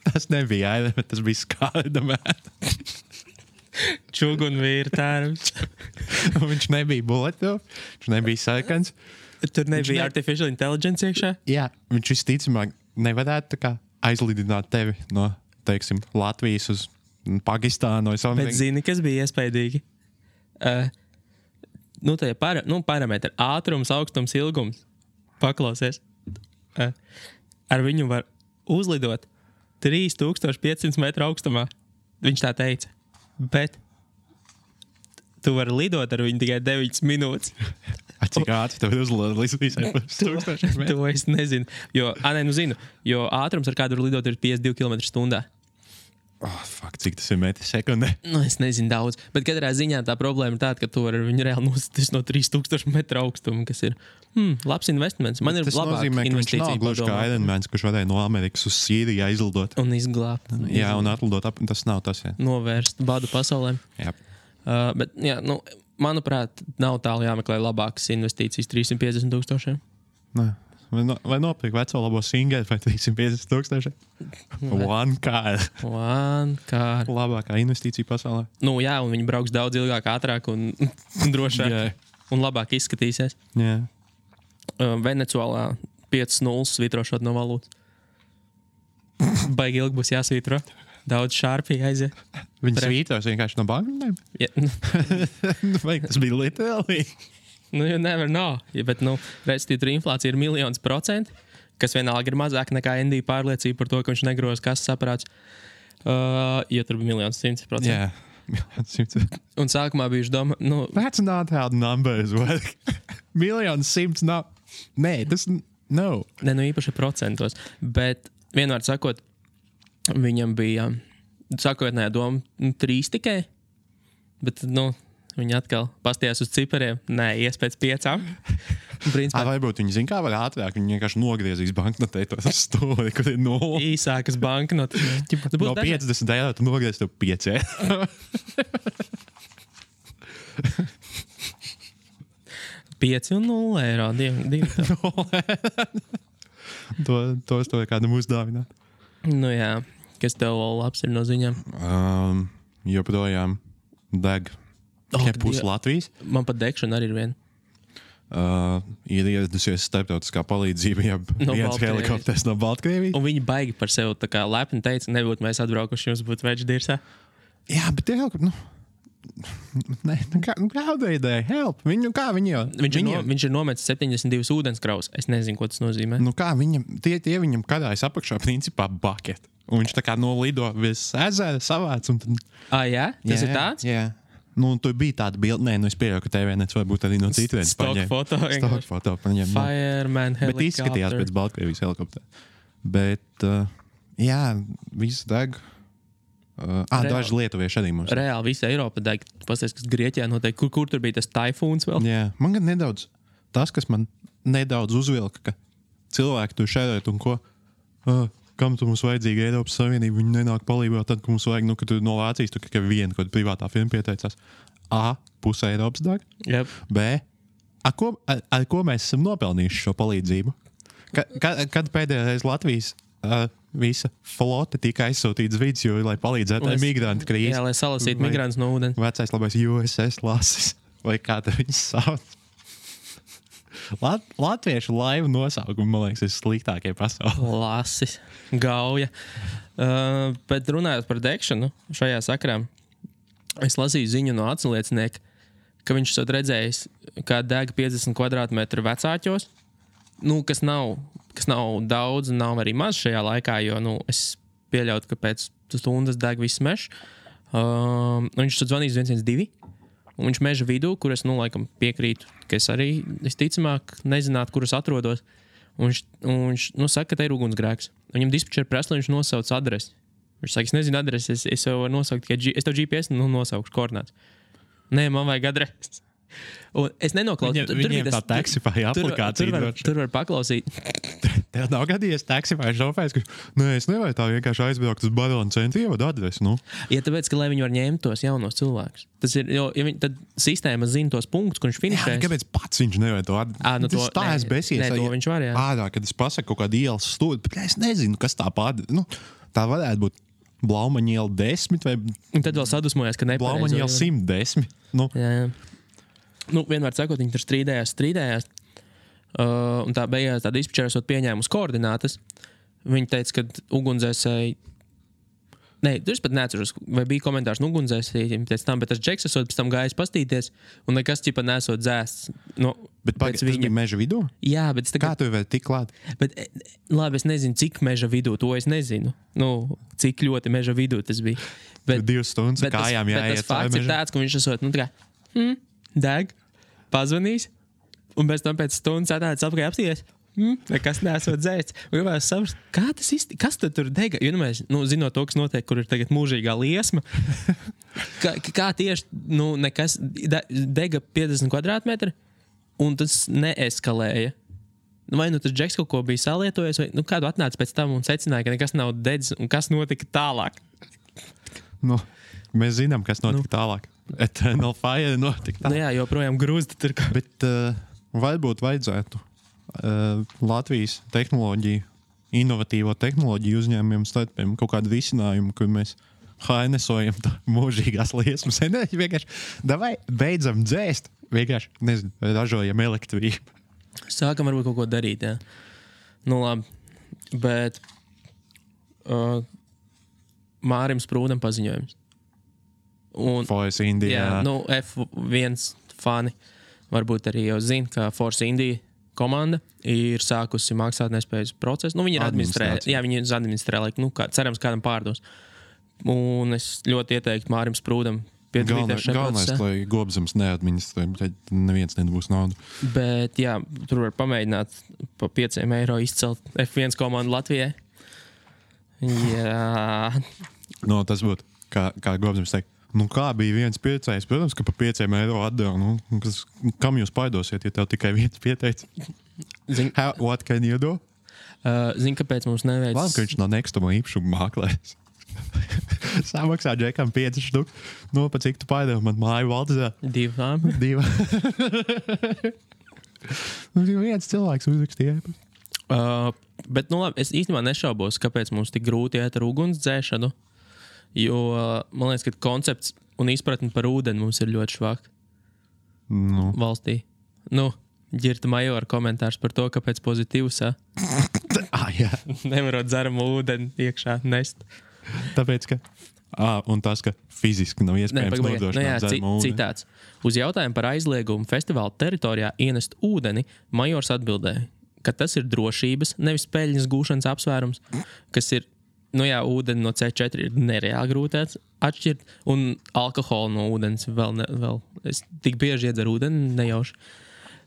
Tas nebija Ironman, tas bija Skārdamēn. Čugunvīra tērps. Viņš nebija bulletproof, viņš nebija sarkans. Tur nebija artificial intelligence iekšā? Jā, viņš visticamāk nevarētu tā kā aizlidināt tevi no, teiksim, Latvijas uz Pakistānu. Bet zini, kas bija iespaidīgi? Parametri. Ātrums, augstums, ilgums. Paklausies. Ar viņu var uzlidot 3500 metru augstumā. Viņš tā teica. Bet tu vari lidot ar viņu tikai 9 minūtes. Cik ātri tev ir uzlidot līdz visai 1000 metru? To es nezinu. Zinu. Jo ātrums, ar kādu var lidot, ir 52 km/h. Cik tas ir metri sekundē? Es nezinu daudz. Bet katrā ziņā tā problēma ir tāda, ka tu vari ar viņu reāli nosties no 3000 metru augstuma, kas ir labs investiments. Man ir labāk investīcija. Tas nozīmē, ka viņš nav gluži kā Ironmans, kurš varēja no Amerikas uz Sīriju aizlidot. Un izglābt. Jā, un atlidot tas nav tas, jā. Novērst badu pasaulēm. Jā. Bet, jā, manuprāt, nav tālu jāmeklē labākas investīcijas 350,000. Nē. Vai nopirkt veco labo singeri vai 350,000? One car. Labākā investīcija pasaulē. Jā, un viņi brauks daudz ilgāk, ātrāk un drošāk. Yeah. Un labāk izskatīsies. Yeah. Venecuālā 5-0 svītrošot no valūtas. Baigi ilgi būs jāsvītro. Daudz šārpī aiziet. Viņi svītros vienkārši no banknotēm? Vai tas bija literāli? You never know. Bet, respektīvi, tur inflācija ir 1,000%, kas vienalga ir mazāk nekā ND pārliecība par to, ka viņš negroz kases aparāts. Jo tur bija 1,100%. Jā, 1,100. Un sākumā bijuši doma, That's not how numbers work. 1,100,000 nav. Nē, tas nav. Ne, īpaši procentos. Bet, vienmēr sakot, viņam bija sākotnējā doma 3 tikai. Bet, viņi atkal pastījās uz cipariem. Nē, ies pēc 5. Principā, varbūt viņi zina, kā var ātrāk. Viņi vienkārši nogriezīs banknotē to stūri, kur ir 0. Īsākas banknotes. No 50 eiro tu nogriez tev 5 eiro. 5 un 0 eiro. Divi. Tos to kādam uzdāvināt. Jā. Kas tev labs ir no ziņām? Joprojām deg. Tikai pusi Latvijas. Man pat degšana arī ir viena. Ir ieradusies starptautiskā palīdzība, ja viens helikopters no Baltkrievijas. Un viņi baigi par sevi tā kā lepni teica, nebūtu mēs atbraukuši, jums būtu večs dirsā. Jā, bet tie helikopteri, kāda ideja? Help! Viņš ir nometis 72 ūdenskraus. Es nezinu, ko tas nozīmē. Kā tie viņam karājas apakšā principā bucket. Un viņš tā kā nolido virs ezera savāc. Jā? Tas ir tāds? Jā. Tur bija tāda bilde, es pieļauju, ka TVNets varbūt arī no citu vietas paņēma. Stock foto paņēma. Fireman helikopter. Bet izskatījās pēc Baltkrievijas helikoptera. Bet, jā, viss deg. Daži lietuvieši arī mums. Reāli visa Eiropa deg. Pasties, kas Grieķijā notiek. Kur tur bija tas taifūns vēl? Jā, man gan nedaudz, tas, kas man nedaudz uzvilka, ka cilvēki tur šērēt un ko, kam tu mums vajadzīga Eiropas Savienība, viņi nenāk palīdzēt tad, ka mums vajag, ka tu no Vācijas, tu tikai viena kaut privātā firma pieteicās. A, puse Eiropas dag. Yep. B, ar ko mēs esam nopelnījuši šo palīdzību? Kad pēdējā reize Latvijas visa flote tika aizsūtīts vidusjūrā, lai palīdzētu migrantu krīzi? Jā, lai salasītu migrantus no ūdens. Vecais labais USS Lasis, vai kā te viņus sauc? Latviešu laivu nosaukumi, man liekas, ir sliktākie pasaulē. Lasis, gauja. Bet runājot par degšanu šajā sakrā, es lasīju ziņu no atsliecinieka, ka viņš esot redzējis, kā deg 50 kvadrātmetru vecāķos, kas nav daudz, nav arī maz šajā laikā, jo es pieļautu, ka pēc stundas deg viss mežs. Viņš esot zvanījis 112. Un viņš meža vidū, kur es, laikam piekrītu, ka es arī, ticamāk, nezinātu, kur es atrodos. Un viņš saka, ka te ir ugunsgrēks. Viņam dispečeri prasa, lai viņš nosauc adresi. Viņš saka, es nezinu adresi, es jau varu nosaukt tikai es tev GPS nosaukšu koordinātus. Nē, man vajag adresi. Un es nenoklausu. Viņiem tā Taxify aplikācija. Tur var paklausīt. Tev nav gadījies Taxify šofērs, ka es nevaru tā vienkārši aizbraukt uz Barona centru, ievadu adresi. Ja tāpēc, ka lai viņi var ņemt tos jaunos cilvēkus. Tas ir, jo tad sistēma zina tos punktus, kur viņš finišēs. Jā, kāpēc pats viņš nevar to adresi? Tas tā es besies. Nē, to viņš var, jā. Ārā, kad es pasaku kaut kādu ielas stūri, bet es nezinu, kas tā pārdara. Tā varētu būt Blaumaņa iela 10 vai... Un tad vēl sadusmojās, ka nepareizo. Blaumaņa iela 110. Jā. Vienmēr sakot, viņi tur strīdējās. Un tā beigās tā dispečera esot pieņēmusi koordinātas. Viņi teica, ka ugunsdzēsēji... Nē, tur es pat neatceros, vai bija komentārs no ugunsdzēsējiem pēc tam, bet tas džeks esot pēc tam gājis pastīties un nekas ķipa nesot dzēsts. Bet tas bija meža vidū? Jā, bet... Kā tu vēl tik klāt? Bet, labi, es nezinu, cik meža vidū, to es nezinu. Cik ļoti meža vidū tas bija. Bet, 2 stundas kājām jāiet. Bet tas fakts ir tāds, ka viņš esot, deg, pazvanīs, un pēc tam pēc stundas atnācis apkārt apstīties. Nekas nesot dzēsts. Gribētu saprast, kā tas īsti, kas tad tur dega? Jo mēs, zinot to, kas notiek, kur ir tagad mūžīgā liesma, kā tieši, nekas dega 50 kvadrātmetri, un tas neeskalēja. Vai tas džeks kaut ko bija salietojis, vai kādu atnāca pēc tam un secināja, ka nekas nav dedzis, un kas notika tālāk? Mēs zinām, kas notika tālāk. Eternal Fire notika. Nu jā, joprojām grūzta tur. Bet varbūt vajadzētu Latvijas tehnoloģiju, inovatīvo tehnoloģiju uzņēmumiem starpiem kaut kādu risinājumu, kur mēs hainesojam tā mūžīgās liesmas enerģiju. Vienkārši, davai, beidzam dzēst. Vienkārši, nezinu, ražojam elektrību. Sākam varbūt kaut ko darīt, jā. Nu labi, bet Mārim Sprūdam paziņojums. Un, Force India. jā, nu F1 fani varbūt arī jau zina, ka Force India komanda ir sākusi maksātnespējas procesu. Nu, viņi ir administrē, cerams, kādam pārdos. Un es ļoti ieteiktu Mārim Sprūdam piedalīties šajā procesā. Galvenais, lai Gobzems neadministrē, tad neviens nebūs naudu. Bet jā, tur var pamēģināt pa 5 eiro izcelt F1 komandu Latvijai. Jā. No, tas būtu, kā Gobzems teikt. Nu, kā bija viens piecējs? Protams, ka pa 5 eiro atdeva. Nu, kam jūs paidosiet, ja tev tikai viens pieteic? What can you do? Zini, kāpēc mums neveic... Labi, ka viņš nav nekustamo īpašumu māklējs. Samaksā džekam 5 štuk. Nu, pa cik tu paidēvi man māju Valdzē? 2. 2. Viens cilvēks uzrakstīja. Bet, nu labi, es īstenībā nešaubos, kāpēc mums tik grūti iet ar uguns dzēšanu. Jo, man liekas, ka koncepts un izpratni par ūdeni mums ir ļoti švāk valstī. Nu, Ģirta Majora komentārs par to, kāpēc pozitīvs, Jā. Nevarot dzeramu ūdeni iekšā nest. Tāpēc, ka... un tas, ka fiziski nav iespējams nodrošināt dzeramu ūdeni. Citāts. Uz jautājumu par aizliegumu festivāla teritorijā ienest ūdeni, Majors atbildēja, ka tas ir drošības, nevis peļņas gūšanas apsvērums, kas ir nu jā, ūdeni no C4 ir nereāli grūti atšķirt, un alkoholu no ūdens vēl. Es tik bieži iedzeru ūdeni, nejauši.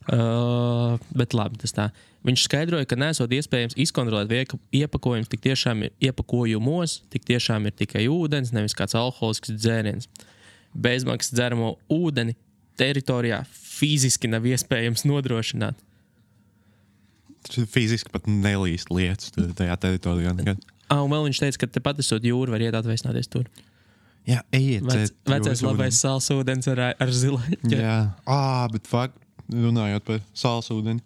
Bet labi, tas tā. Viņš skaidroja, ka nesot iespējams izkontrolēt iepakojums, tik tiešām ir iepakojumos, tik tiešām ir tikai ūdens, nevis kāds alkoholisks dzēriens. Bezmaksas dzeramo ūdeni teritorijā fiziski nav iespējams nodrošināt. Fiziski pat nelīst lietas tajā teritorijā nekad. Un vēl viņš teica, ka tepat esot jūru var iet atveicināties tur. Jā, ejiet. Vecais labais sāls ūdens ar zilaņu. Jā, bet fakt, runājot par sāls ūdeni.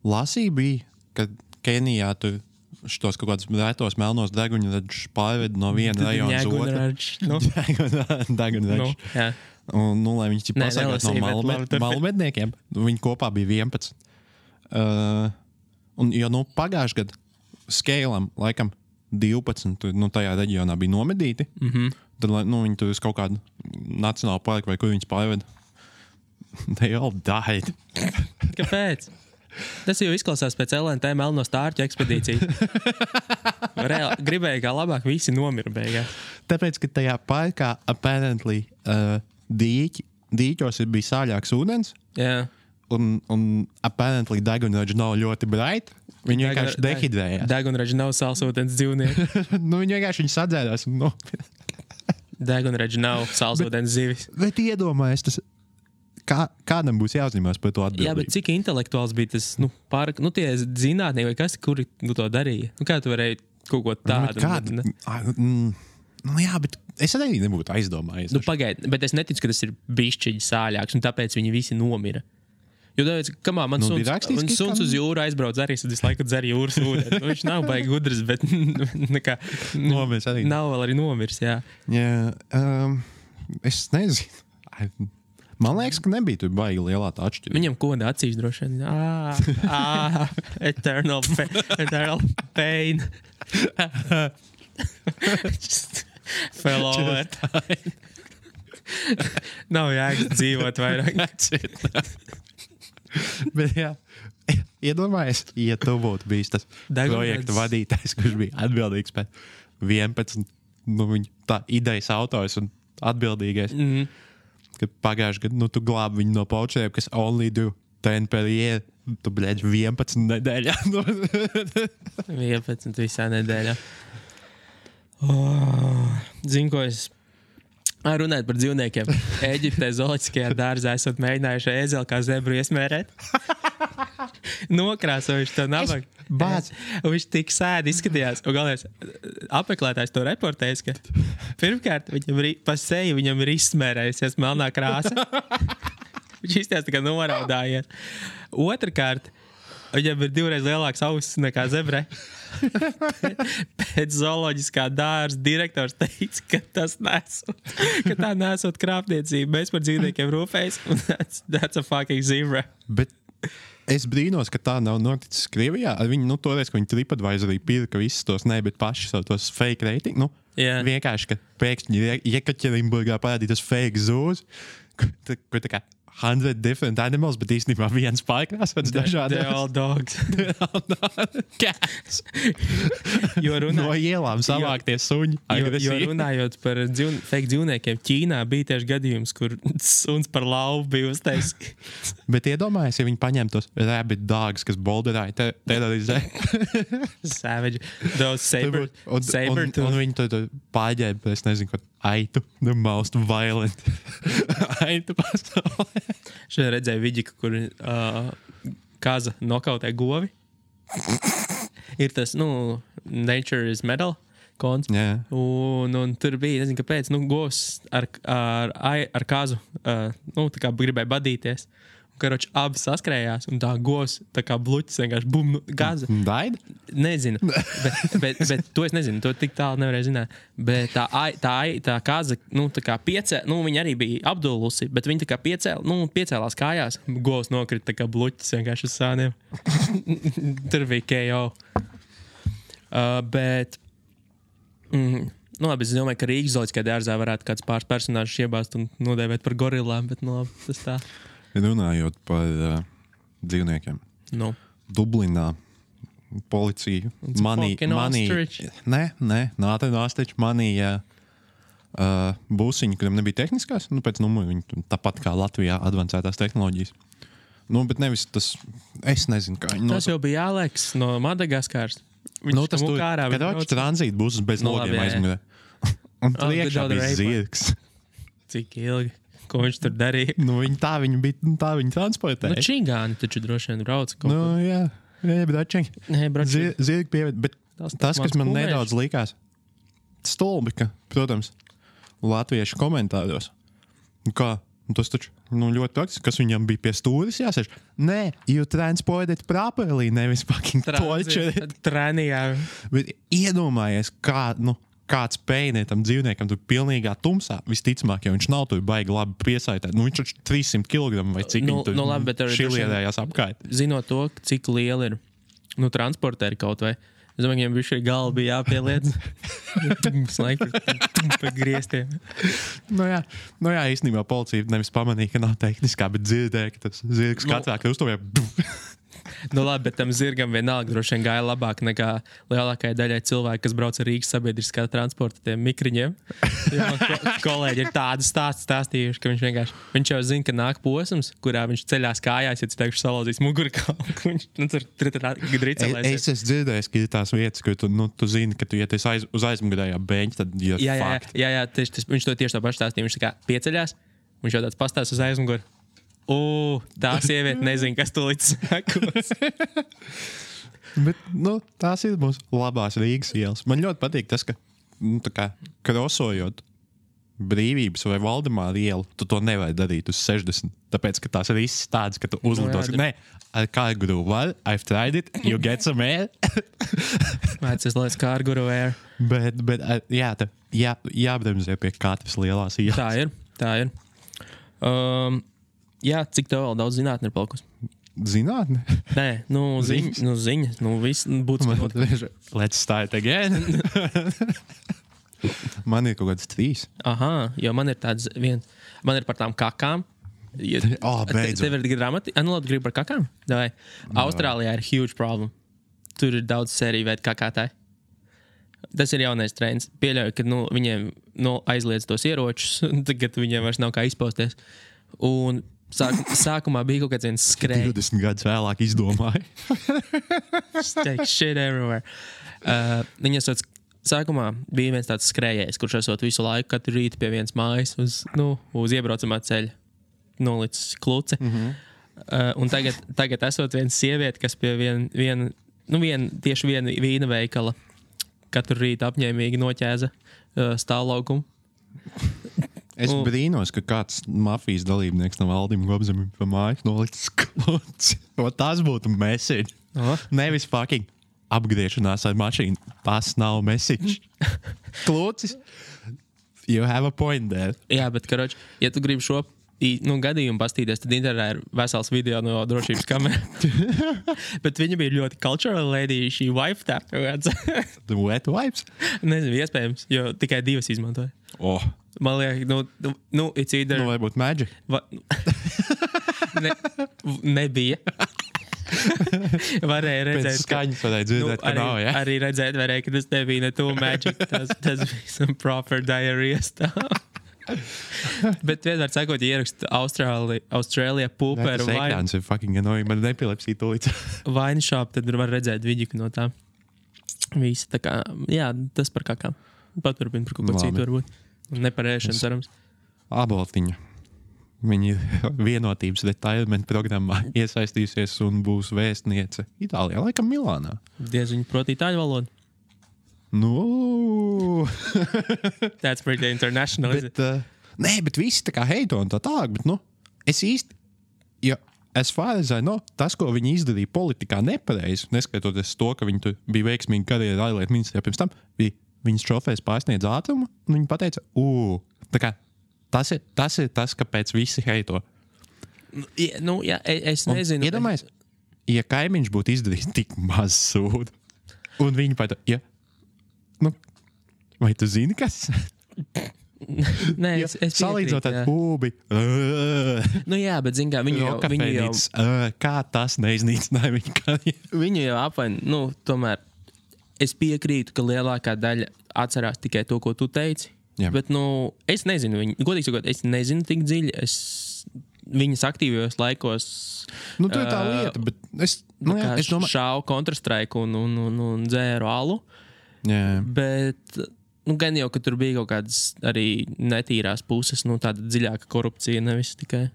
Lasīja bija, ka Kenijā tur šitos kaut kādus retos melnos deguņraģus pārved no viena rajona uz otru. Deguņraģus. Jā. Un, lai viņi pasargāt no malmedniekiem, viņi kopā bija 11. Un, jo, pagājuši gadu Skēlam, laikam, 12 tajā reģionā bija nomedīti. Tad, viņi tur uz kaut kādu nacionālu parku vai kur viņus pārveda. They all died. Kāpēc? Tas jau izklausās pēc LNT melno stārķu ekspedīciju. Gribēja, kā labāk visi nomira beigās. Tāpēc, ka tajā parkā apparently dīķos bija sāļāks ūdens. Jā. Un apparently degunraģi nav ļoti bright. Viņi vienkārši dehidrējās. Degunraģi nav sālsūdens dzīvnieki. Viņi vienkārši sadzērās. Degunraģi nav sālsūdens zivis. Bet iedomājies, tas kādam būs jāuzņemās par to atbildību. Jā, bet cik intelektuāls bija tas, tie zinātnieki vai kas, kuri to darīja? Kā tu varēji kaut ko tādu? Jā, bet es arī nebūtu aizdomājies. Pagaid, bet es neticu, ka tas ir bišķiņi sāļāks, un tāpēc viņi visi nomira. Jo tāpēc, kamā, man suns uz jūru aizbrauc arī, tad visu laiku dzer jūras ūdeni. Viņš nav baigi gudrs, bet nekā... Nomirs arī. Nav vēl arī nomirs, jā. Jā, es nezinu. Man liekas, ka nebija tur baigi lielā tā atšķirība. Viņam koda acīs droši vien. Eternal pain. Just fell over. Nav jēgas dzīvot vairāk. Bet jā, iedomājies, ja tu būtu bijis tas projekta vadītājs, kurš bija atbildīgs par 11, viņa tā idejas autors un atbildīgais, kad pagājuši gadu, tu glābi viņu no paučeriem, kas only do 10 per year, tu, 11 nedēļā. 11 visā nedēļā. Zinu, ko es... Runājot par dzīvniekiem. Eģiptē zooloģiskajā dārzā esat mēģinājuši ēzeli kā zebru iesmērēt. nokrāsojuši to nabagu. Un viņš tik sēdi izskatījās. Un galvenais apmeklētājs to reportējis, ka pirmkārt viņam pa seju viņam ir izsmērējusies melnā krāsa. Viņš izties tā kā noraudājies. Otrkārt, viņam ir 2 reizes lielāks ausis nekā zebrē. Pēc zooloģiskā dārza direktors teica, ka tā nesot krāpniecība. Mēs par dzīvniekiem rūpējas, un that's a fucking zebra. Bet es brīnos, ka tā nav noticis Krievijā. Viņi, toreiz, ka viņi TripAdvisorī pirka visus tos, bet paši savu tos fake rating. Vienkārši, ka pēkšņi Jekaķerinburgā parādītas fake zoos, kur tā kā 100 different animals, bet īstenībā viens pārkrāsots dažādi. They're all dogs. Cats. No ielām savāktie suņi. Jo runājot par fake dzīvniekiem, Ķīnā bija tieši gadījums, kur suns par lauvu bija uztaisīts. Bet iedomājies, ja viņi paņem tos rabbit dogs, kas bolderāja terorizē. Savage. Those saber. Un viņi to pārģēba, es nezinu, ko aitu. The most violent aitu pasaulē. Šodien redzēju vidiku, kur kaza nokautē govi. Ir tas, Nature is Metal konts. Yeah. Un tur bija, nezinu, kāpēc, govs ar kazu, tā kā gribēja badīties. Karoči, abi saskrējās, un tā govs, tā kā bluķis, vienkārši bum, gaza. Daida? Nezinu, bet to es nezinu, to tik tālu nevarēju zināt. Bet tā kaza, tā kā viņa arī bija apdulusi, bet viņa tā kā piecēlās kājās, govs nokrita tā kā bluķis vienkārši uz sāniem. Tur bija KO. Labi, es domāju, ka Rīgas zooloģiskajā dārzā varētu kāds pāris personāžus iebāzt un nodēvēt par gorilām, bet labi, tas tā. Runājot par dzīvniekiem. Dublinā policija manīja būsiņu, kuram nebija tehniskās, pēc numuru viņi tāpat kā Latvijā advancētās tehnoloģijas. Bet nevis tas, es nezinu, kā viņi Tas jau bija Aleks no Madagaskars. Tas tur, kad atš tranzīta būs bez logiem aizmugurē. Un priekšā bija zirgs. Cik ilgi? Ko viņš tur darīja? Tā viņi transportēja. Čingāni taču droši vien brauca kaut ko. Jā, bračingi. Zirgi pieviet, bet tas, kas man nedaudz likās stulbi, ka, protams, latviešu komentāros. Kā? Tas taču ļoti praktiski, kas viņam bija pie stūris jāsēž. Nē, you transported properly, nevis fucking torture. Tranījā. Bet iedomājies, kāds pēnie tam dzīvniekam tur pilnīgā tumsā, visticamāk, ja viņš nav tur baigi labi piesaitēt. Viņš taču 300 kg vai cik viņi tur šilierējās apkārt. Zinot to, cik liela ir transportēri kaut vai. Es domāju, viņiem bišķi galva bija jāpieliec. Pa griestiem. Jā, īstenībā policija nevis pamanīja, ka nav tehniskā, bet dzirdēja, ka tas zirgs katrā krustovē. Labi, bet tam zirgam vienalga droši vien gāja labāk nekā lielākajai daļai cilvēki, kas brauc ar Rīgas sabiedriskā transporta tiem mikriņiem. Kolēģi ir tādu stāstījuši, ka viņš jau zina, ka nāk posms, kurā viņš ceļās kājās, ja teikšu salauzīs mugurkaulu. Viņš tur dricelēsies. Es esmu dzirdējis, ka ir tās vietas, kur tu zini, ka tu iet uz aizmugurējā beņķa, tad ir fakti. Jā, viņš to tieši tā paši stāstīja. Viņš tā kā pieceļās, viņš jau tāds pastāst uz aizmuguru. Tā sieviete nezina, kas tu līdz sekos. Bet, tās ir mūsu labās Rīgas ielas. Man ļoti patīk tas, ka, krosojot Brīvības vai Valdemāra ielu, tu to nevari darīt uz 60. Tāpēc, ka tās ir visas tādas, ka tu uzlidos. Nē, ar kārguru var, I've tried it, you get some air. Mācies, lai es kārguru air. Bet jābremzē pie katras lielās ielas. Tā ir. Jā, cik tev vēl daudz zinātni ir palikusi? Zinātni? Nē, ziņas. Viss būtu Let's start again. Man ir kaut kāds 3. Aha, jo man ir tāds man ir par tām kakām. Beidzot. Tev ir grāmati? Labi, gribi par kakām? Davai. Austrālijā ir huge problem. Tur ir daudz sēriju veidu kakātāji. Tas ir jaunais trends. Pieļauju, ka viņiem aizliedz tos ieročus, tagad viņiem vairs nav kā izpausties. Un sākumā bija kaut kāds viens skrēja. 20 gadus vēlāk izdomāja. Shit everywhere. Sākumā bija viens tāds skrējējs, kurš esot visu laiku, katru rītu pie vienas mājas uz iebraucamā ceļa. Nolicis kluci. Un tagad esot viena sieviete, kas pie tieši viena vīna veikala katru rītu apņēmīgi noķēza stāvlaukumu. Es brīnos, ka kāds mafijas dalībnieks no Valdim Gobzemim pa mājas nolicis kluci. Tas būtu message. Nevis fucking apgriešanās ar mašīnu. Tas nav message. Klucis. You have a point there. Jā, bet, karoči, ja tu gribi šo gadījumu pastīties, tad internetā ir vesels video no drošības kameras. Bet viņa bija ļoti cultural lady, šī wife tā. The wet wipes? Nezinu, iespējams, jo tikai 2 izmantoja. Man liekas, it's either... Varbūt magic. Nebija. Varēja redzēt, pēc skaņas varēja dzirdēt, ka nav, ja? Arī redzēt varēja, ka tas nebija ne to magic. Tas bija some proper diarrhea stuff. Bet vienmēr sakot, ja ierakst Austrālijā pūperu vai... Tas ir fucking annoying, man nepilepsīja tūlīt. Wine shop, tad var redzēt vidiku no tā. Visi tā kā, jā, tas par kakām. Paturpin par kaut ko citu varbūt. Ne par ēšanu, cerams. Aboltiņa. Viņa vienotības retirement programmā iesaistīsies un būs vēstniece Itālijā, laikam Milānā. Diez viņa prot itāļu valodu. No. That's pretty international, bet, nē, bet visi tā kā heito un tā tālāk, bet, es īsti, ja as far as I know, tas, ko viņi izdarīja politikā nepareizi, neskatoties to, ka viņi tur bija veiksmīgi karjeru ārlietu ministrijā pirms tam, bija viņas šofērs pārsniedz ātrumu, un viņi pateica, tā kā, tas ir tas, kāpēc visi heito. Jā, es nezinu. Iedomājies, ja kaimiņš būtu izdarījis tik maz sūdu, un viņi pateica, vai tu zini, kas? Nē, es salīdzinot ar pūbi. Jā, bet zin kā, viņu jau... Kā tas neiznīcināja viņu karjeru? Viņu jau apvain, tomēr es piekrītu, ka lielākā daļa atcerās tikai to, ko tu teici. Jā. Bet, es nezinu, godīgi sakot, es nezinu tik dziļi, viņas aktīvajos laikos... tā ir tā lieta, bet es domāju... Šāvu Counter-Strike un dzēru alu. Jā. Bet, gan jau, ka tur bija kaut kādas arī netīrās puses, tāda dziļāka korupcija, nevis tikai.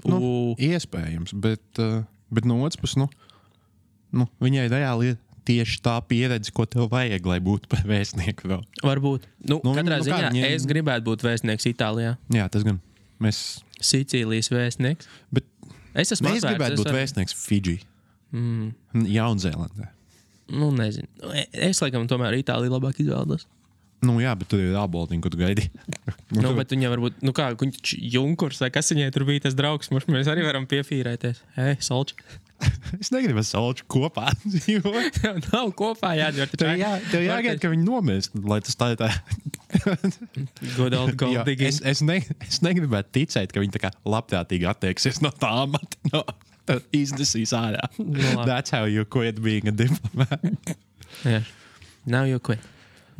Iespējams, bet no otras puses, viņai reāli ir tieši tā pieredze, ko tev vajag, lai būtu par vēstnieku vēl. Varbūt. Katrā ziņā es gribētu būt vēstnieks Itālijā. Jā, tas gan. Sicīlijas vēstnieks. Bet es gribētu būt vēstnieks Fidži. Jaunzēlandē. Nezinu. Es laikam tomēr Itāliju labāk izvēlos. Jā, bet tur ir Aboltiņa, ko tu gaidi. Bet viņa varbūt, Junkurs, vai kas viņai tur bija tas draugs, mēs arī varam piefīrēties. Solči. Es negribu ar Solču kopā dzīvot. Nav kopā jādzīvot. Tev jāgaida, ka viņi nomirst, lai tas tā ir tā. Good old gold digging. Es negribētu ticēt, ka viņi tā kā labprātīgi attieksies no tā amata. Iznesīs ārā. That's how you quit being a diplomat. Yeah. Now you quit.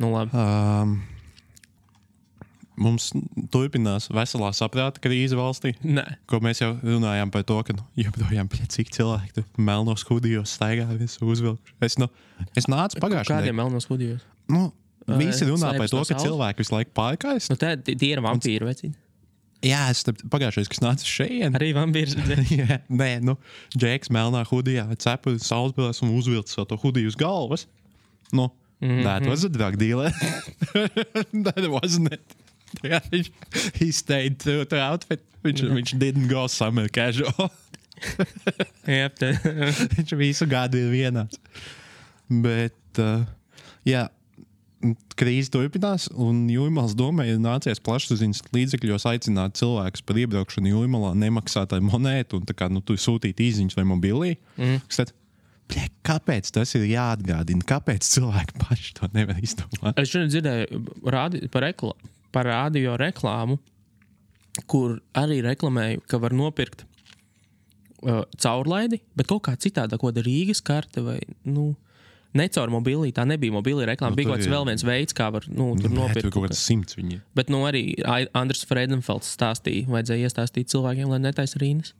Labi. Mums turpinās veselā saprāta krīze valstī. Nē. Ko mēs jau runājām par to, ka joprojām cik cilvēki tur melnos hudijos staigā visu uzvilkuši. Es nācu pagājušajā. Kādiem melnos hudijos? Visi runā par to, ka cilvēki visu laiku pārkājas. Tie ir vampīri, vecīni. Jā, es pagājušais, kas nāca šeit. Arī vampīrs redzēja. Nē, Džeks melnā hudijā, cepuri saulesbrillēs un uzvilcis to hudiju uz galvas. That was a drug dealer. That wasn't it. He stayed true to outfit. Viņš didn't go summer casual. Yep. Viņš visu gadu ir vienāds. Bet, jā, krīze turpinās, un Jūrmalas domē ir nācies plašsaziņas līdzekļos aicināt cilvēkus par iebraukšanu Jūrmalā nemaksāt ar monētu un tā kā, tu sūtīt īziņas vai mobilī. Kāpēc tas ir jāatgādina? Kāpēc cilvēki paši to nevar izdomāt? Es šodien dzirdēju par radio reklāmu, kur arī reklamēju, ka var nopirkt caurlaidi, bet kaut kā citādā, ko da Rīgas karte vai, ne caur mobilī, tā nebija mobilī reklāma, bija kaut kāds vēl viens veids, kā var, tur nopirkt. Tur kaut kāds 100 viņi. Bet, arī Andris Fredenfelds stāstīja, vajadzēja iestāstīt cilvēkiem, lai netais rīnas.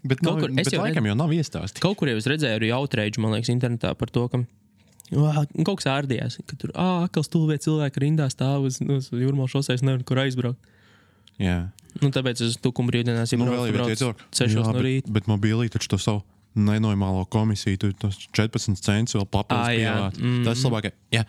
Bet laikam jau nav iestāstīt. Kaut kur jau es redzēju arī outrage, man liekas, internetā par to, ka kaut kas ārdījās, ka tur akals stulbie cilvēki rindā stāv uz Jūrmalas šoseis, nevar kur aizbraukt. Jā. Nu, tāpēc es tukumu brīvdienās jau braucu 6 no rīta. Bet mobilī taču to savu nenormālo komisiju, tu tos 14 centus vēl papildus pievāc. Tas labāk, ja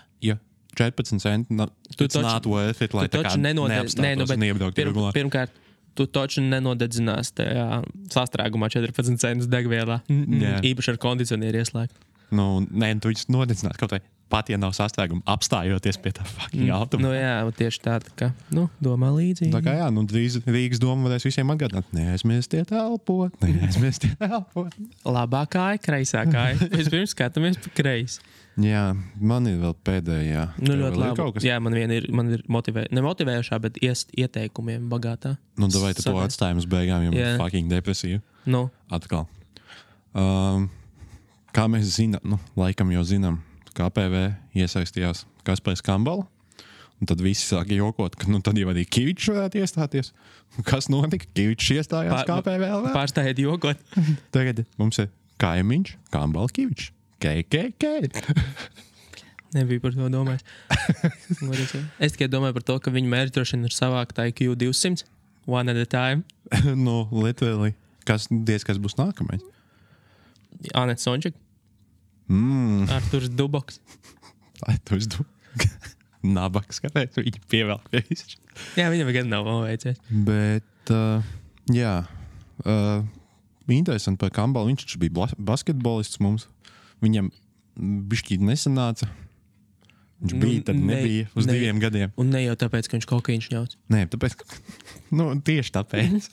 14 centi, it's not worth it, lai tā kā neapstātos un iebrauktu regulā. Pirmkārt, tu taču nenodedzinās tajā sastrēgumā 14 centus degvielā. Īpaši ar kondicionieru ieslēgt. Nu, nē, tu viņus nodedzinās kaut vai pat, ja nav sastrēguma, apstājoties pie tā fucking automašīna. Nu jā, tieši tā kā, domā līdzīgi. Tā kā jā, drīz Rīgas doma varēs visiem atgādināt, neaizmirstiet elpot. Labā kāja, kreisā kāja. Vispirms skatāmies pa kreisi. Jā, man ir vēl pēdējā. Nu, ļoti labi. Jā, man ir nemotivējušā, bet ieteikumiem bagātā. Nu, davai tu to atstājam uz beigām, jo man fucking depresija. Nu. Atkal. Kā mēs zinām, laikam jau zinām, KPV iesaistījās Kaspars Kambala, un tad visi sāka jokot, ka tad jau arī Kivičs varētu iestāties. Kas notika? Kivičs iestājās KPV. Pārstājiet jokot. Tagad mums ir kaimiņš, Kambala Kivičs. KKK. Nebija par to domājis. Es tikai domāju par to, ka viņu mērķi droši vien ir savākt IQ 200, one at a time. Literally. Kas būs nākamais? Anets Sončik. Arturs Duboks. Arturs Duboks. Nabaks, kāpēc viņi pievēl pie visu. Jā, viņam gan nav veicies. Bet, jā. Interesanti par Kambalu. Viņš bija basketbolists mums. Viņam bišķīt nesanāca. Viņš bija, tad nebija uz 2 gadiem. Un ne jau tāpēc, ka viņš kokaiņš ņauts. Nē, tāpēc, tieši tāpēc.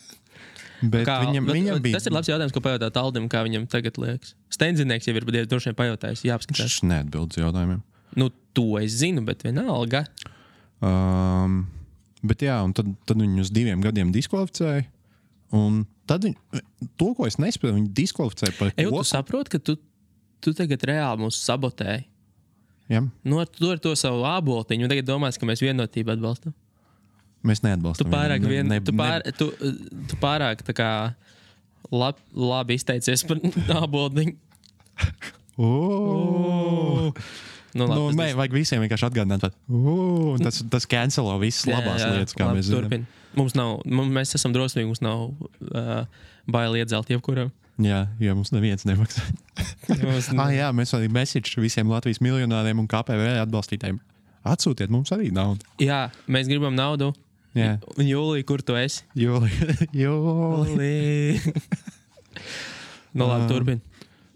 Bet viņam bija... Tas ir labs jautājums, ko pajautāt Aldim, kā viņam tagad liekas. Steinzinieks jau ir droši vien pajautājis, jāapskatās. Viņš neatbild uz jautājumiem. To es zinu, bet vienalga. Bet jā, un tad viņu uz 2 gadiem diskvalificēja. Un tad to, ko es nespēju, viņu diskvalificēja par ko. Tu saproti, ka tu tagad reāli mūs sabotēji. Jā. Tu ar to savu āboltiņu, un tagad domās, ka mēs vienotību atbalstam. Mēs neatbalstam. Tu pārāk tā kā labi izteicies par āboltiņu. Vajag visiem vienkārši atgādināt. Tas cancelo visas labās lietas, kā mēs zinām. Mēs esam drosmīgi, mums nav baili iedzelt jebkuram. Jā, mums neviens nemaksā. Jā, mēs arī message visiem Latvijas miljonāriem un KPV atbalstītājiem. Atsūtiet mums arī naudu. Jā, mēs gribam naudu. Jā. Un Jūlija, kur tu esi? Jūlija. Labi, turpin.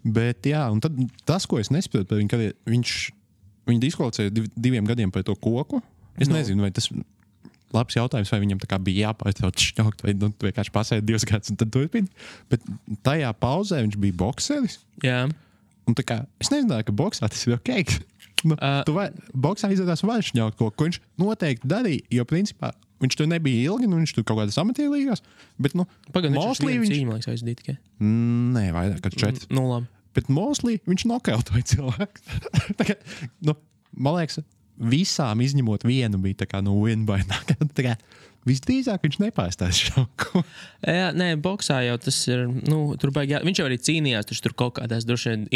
Bet jā, un tad tas, ko es nespēju par viņu, kad viņu diskvalificēja 2 gadiem par to koku. Es nezinu, vai tas labs jautājums, vai viņam tā kā bija jāpārtrauc šņaukt, vai vienkārši pasēja 2 gadus un tad turpin. Bet tajā pauzē viņš bija bokseris. Jā. Un tā kā, es nezināju, ka boksā tas ir ok. Boksā izrādās var šņaukt ko viņš noteikti darīja, jo principā viņš tur nebija ilgi, viņš tur kaut kādas amatierlīgās, bet, mostly viņš... Cīņu, liekas, aizdīt tikai. Nē, vairāk, kad 4. Labi. Bet mostly viņš nokautoja cilvēku. Tā kā, man liekas, visām izņemot vienu bija tā kā win by knockout. Tā kā visdrīzāk viņš nepārstās šauku. Jā, nē, boksā jau tas ir, viņš jau arī cīnījās, tur kaut kādās droši vien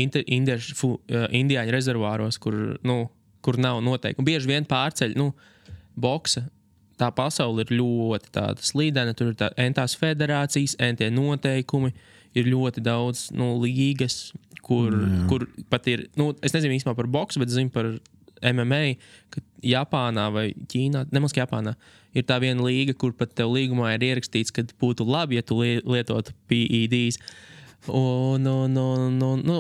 indiāņu rezervāros, kur nav noteikumi. Bieži vien pārceļ, boksa. Tā pasaule ir ļoti tāda slīdena, tur ir entās federācijas, entie noteikumi, ir ļoti daudz līgas, kur pat ir, es nezinu īstenībā par boksu, bet zinu par MMA, ka Japānā vai Ķīnā, nemaz Japānā, ir tā viena līga, kur pat tev līgumā ir ierakstīts, ka būtu labi, ja tu lietotu PEDs. Un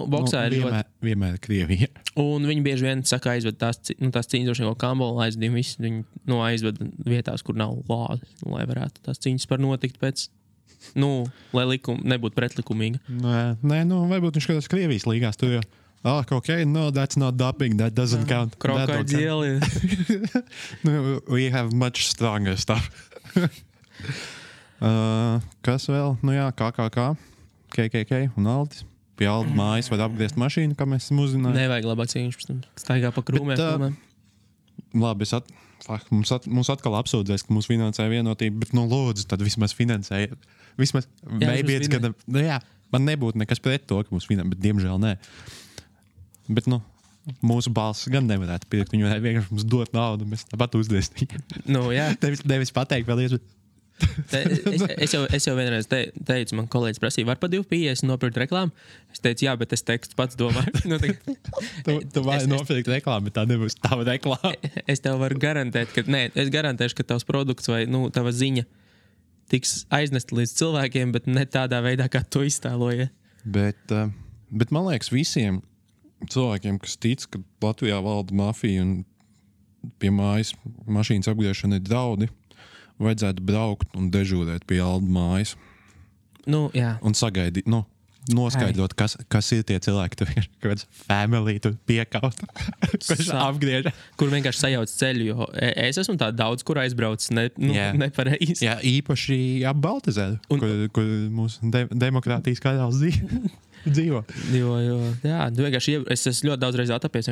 boksā ir vienmēr Krievija. Un viņi bieži vien saka aizved tās cīņas, droši vien kaut Kambola aizdīm visu, viņi aizved vietās, kur nav lāzi, lai varētu tās cīņas par notikt pēc, lai nebūtu pretlikumīga. Nē, varbūt viņš kādās Krievijas līgās tur jau. Okay, no, that's not doping, that doesn't count. Krokodili. We have much stronger stuff. Kas vēl? KKK un Aldis. Pie Alda mājas var apgriezt mašīnu, kā mēs esam uzzinājuši. Nevajag labāk cīņš, staigā pa krūmēm. Labi, mums atkal apsūdzēs, ka mūs finansēja vienotība, bet lūdzu, tad vismaz finansēja. Vismaz, man nebūtu nekas pret to, ka mūs finansēja, bet diemžēl nē. Bet, mūsu balss gan nevarētu pirkt, viņi varētu vienkārši mums dot naudu, mēs tāpat uzdēst. Jā. Nevis pateikt vēl iespēju. Es jau vienreiz teicu, man kolēģis prasīja, var pa 2,50 nopirkt reklāmu? Es teicu, jā, bet es tekstu pats domāju. Tu vari nopirkt reklāmu, bet tā nebūs tava reklāma. Es tev varu garantēt, es garantēšu, ka tavs produkts vai tava ziņa tiks aiznesta līdz cilvēkiem, bet ne tādā veidā, kā tu iztēloji. Bet man liekas, visiem cilvēkiem, kas tic, ka Latvijā valda mafija un pie mājas mašīnas apgriešana ir draudi, vajadzētu braukt un dežūrēt pie Alda mājas. Jā. Un sagaidīt, noskaidrot, kas ir tie cilvēki, tur ir kaut kāds family, tur piekaut, kurš apgriež. Kur vienkārši sajauc ceļu, jo es esmu tā daudz, kur aizbraucis nepareizi. Jā, īpaši ap Baltazeru, kur mūsu demokrātijas karalis dzīvo. Jā, vienkārši es esmu ļoti daudz reizi atapies,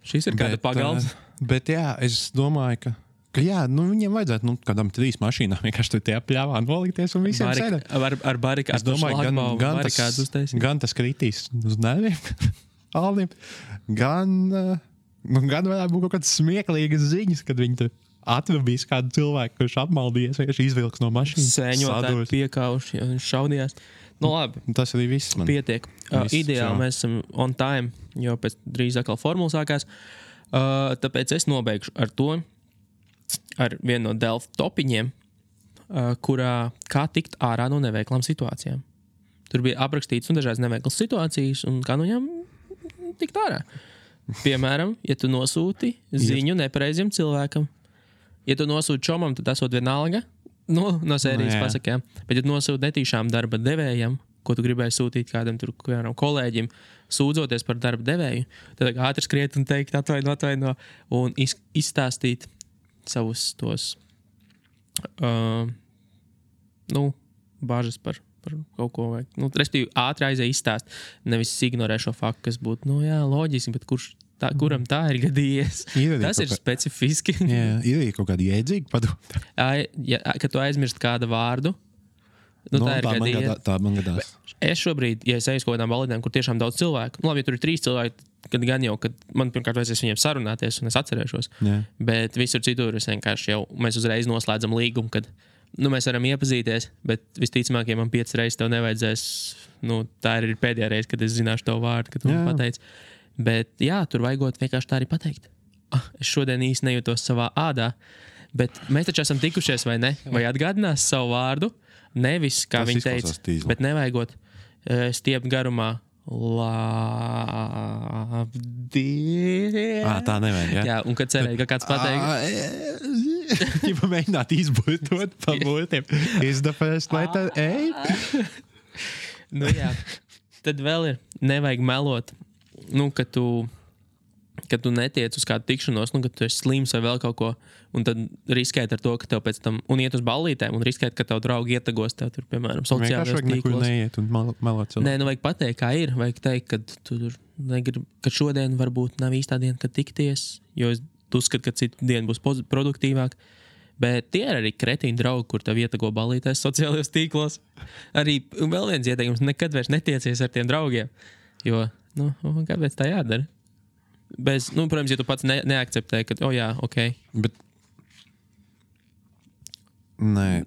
šis ir kāda pagalms. Bet jā, es domāju, ka jā, viņiem vajadzētu kādam 3 mašīnām vienkārši tur tie pļāvā nolikties un visiem sēdēt. Ar barikādu. Es domāju, gan tas kritīs uz nerviem, Aldim, gan varētu būt kaut kādas smieklīgas ziņas, kad viņi tur atrabīs kādu cilvēku, kurš apmaldījies, vienkārši izvilks no mašīnas. Sēņotāji piekauši, ja viņš šaudījās. Labi. Tas arī viss man. Pietiek. Ideāli mēs esam on time, jo pēc drīz atkal formula sākās. Tāpēc es nobeigšu ar vienu no Delft topiņiem, kurā kā tikt ārā no neveiklām situācijām. Tur bija aprakstīts dažādas neveiklas situācijas un kā no viņām tikt ārā. Piemēram, ja tu nosūti ziņu nepareiziem cilvēkam, ja tu nosūti čomam, tad esot vienalga, no sērijas pasakām. Bet, ja tu nosūti netīšām darba devējam, ko tu gribēji sūtīt kādam kolēģim, sūdzoties par darba devēju, tad ātri skriet un teikt atvaino un izstāstīt savus tos bāžas par kaut ko vajag. Respektīvi, ātri aizēj izstāst, nevis ignorē šo faktu, kas būtu, loģiski, bet kuram tā ir gadījies? Tas ir specifiski. Jā, ir kaut kāda jēdzīga padoma. Kad tu aizmirst kādu vārdu, tā ir gadījies. Tā man gadās. Es šobrīd, ja es eju uz kaut kādām balītēm, kur tiešām daudz cilvēku, labi, ja tur ir 3 cilvēki, kad gan jau, kad man pirmkārt vajadzēs viņiem sarunāties un es atcerēšos, bet visur citur es vienkārši mēs uzreiz noslēdzam līgumu, kad mēs varam iepazīties, bet visticamāk, ja man 5 reizes tev nevajadzēs, tā ir pēdējā reize, kad es zināšu tavu vārdu, kad tu man pateici. Bet jā, tur vajagot vienkārši tā arī pateikt. Es šodien īsti nejūtos savā ādā, bet mēs taču esam tikušies, vai ne? Vai atgādinās savu vārdu? Nevis, kā viņi teica, bet nevajagot stiept garumā. Tā nevajag, jā? Jā, un kad cerēja, ka kāds pateiks. Ķipa mēģināt izbūtot pa būtiem. Is the first letter A? Jā. Tad vēl ir, nevajag melot, kad tu netiec uz kādu tikšanos, kad tu esi slims vai vēl kaut ko, un tad riskēt ar to, ka tev pēc tam, un iet uz ballītēm, un riskēt, ka tev draugi ietagos tev tur, piemēram, sociālajos tīklos. Nekur neiet un melot cilvēku. Nē, vajag pateikt, kā ir, vajag teikt, ka šodien varbūt nav īstā diena, kad tikties, jo es uzskatu, ka citu dienu būs produktīvāk. Bet tie ir arī kretīni draugi, kur tev ietago ballītēs sociālajos tīklos. Arī vēl viens ieteikums, nekad vairs netiecies ar tiem draugiem, jo, kāpēc tā jādara? Protams, ja tu pats neakceptē, ka, jā, ok. Bet, nē,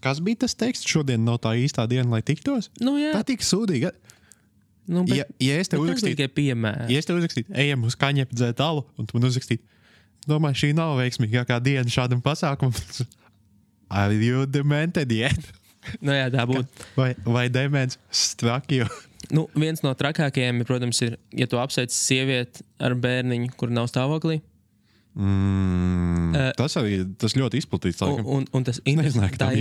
kas bija tas teksts? Šodien nav tā īstā diena, lai tiktos? Jā. Tā tik sūdīga. Ja es tev uzrakstītu, ejam uz kaņepi dzēt alu, un tu man uzrakstītu, domāju, šī nav veiksmīgākā diena šādam pasākumam. Are you demented yet? Jā, tā būtu. Vai demens strakjo? Viens no trakākajiem, protams, ir, ja tu apsveic sievieti ar bērniņu, kur nav stāvoklī. Tas ļoti izplatīts. Un tas tā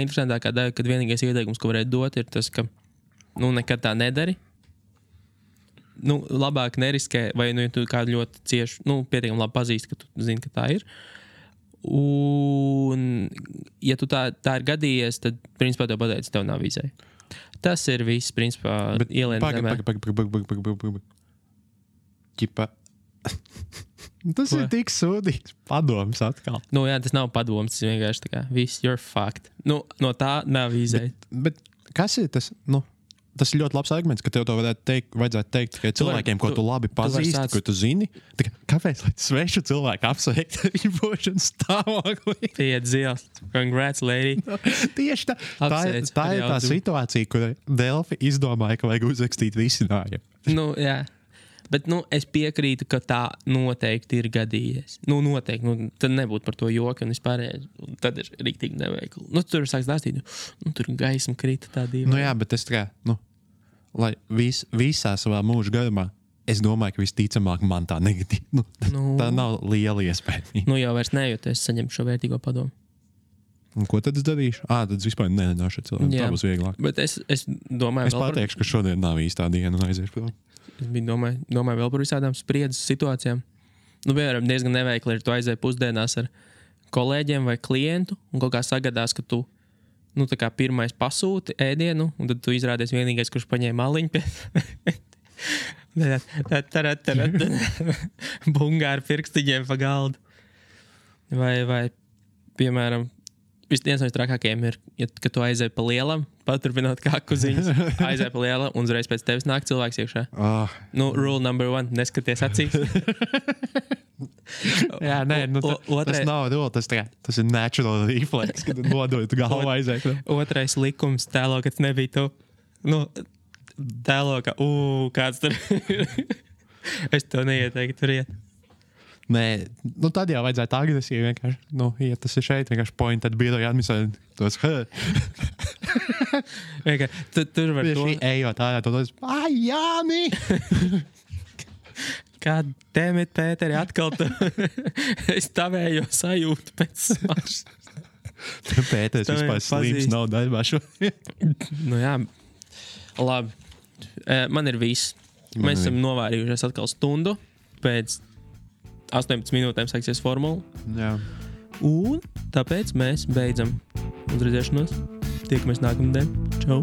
interesantākā daļa, kad vienīgais ieteikums, ko varētu dot, ir tas, ka nekad tā nedari. Labāk neriskē, vai ja tu kādu ļoti cieši, pietiekami labi pazīsti, ka tu zini, ka tā ir. Un, ja tu tā ir gadījies, tad, principā, tev pateic, tev nav vīzē. Tas ir viss, principā, ielien zemē. Ķipa. Tas ir tik sūdīgs padoms atkal. Jā, tas nav padoms, tas vienkārši tā kā, viss, you're fucked. No tā nav vīzē. Bet kas ir tas, tas ir ļoti labs arguments, ka tev to vajadzētu teikt tikai cilvēkiem, ko tu labi pazīsti, ko tu zini. Kāpēc, lai svešu cilvēku apsveikt viņu būšanas stāvoklī? Piet zils. Congrats, lady. Tieši tā. Tā ir tā situācija, kur Delfi izdomāja, ka vajag uzrakstīt risinājumu. Nu, jā. Bet, es piekrītu, ka tā noteikti ir gadījies. Noteikti. Tad nebūtu par to joku un vispārējais. Tad ir riktīgi neveikli. Tur sāks dāstīt. Tur gaisma krita tā dīva. Jā, bet es lai visā savā mūža garumā, es domāju, ka visticamāk man tā negatīva. Tā nav liela iespēja. Jau vairs nejūtu, es saņemšu šo vērtīgo padomu. Un ko tad es darīšu? Tad es vispār nerunāšu ar cilvēku. Tā būs vieglāk. Bet es domāju, es pateikšu, ka šodien nav īstā diena un aiziešu prom. Es domāju vēl par visādām spriedzes situācijām. Piemēram, diezgan neveikli ir, tu aizēji pusdienās ar kolēģiem vai klientu un kaut kā sagadās, ka tu tā kā pirmais pasūti ēdienu un tad tu izrādies vienīgais, kurš paņēma maliņu pie... Bungā ar pirkstiņiem pa galdu. Vai piemēram, viens no trakākajiem ir, ka tu aizēji pa lielam, paturpinot kā kuziņas, aizēji pa lielam un uzreiz pēc tevis nāk cilvēks iekšā. Rule number 1, neskaties acīs. Jā, tas nav rule, tas ir natural reflex, kad nodot galvu aizēt. Otrais likums tēlo, kad nebija tu. Tēlo, ka kāds tur. Es to neieteiktu tur iet. Nē, tad jau vajadzētu agresīvi vienkārši. Ja tas ir šeit, vienkārši pointed biroja administrēt tos. Tur var to... Ejot ārā, to tos, Jāni! God damn it, Pēteri, atkal tu... Es tavējo sajūtu pēc smags. Pēteris vispār slīms nav darbā šodien. Jā, labi. Man ir viss. Mēs esam novārījušies atkal stundu pēc 18 minūtēm sāksies formula. Jā. Un tāpēc mēs beidzam. Uz redzēšanos. Tiekamies nākamnedēļ. Čau!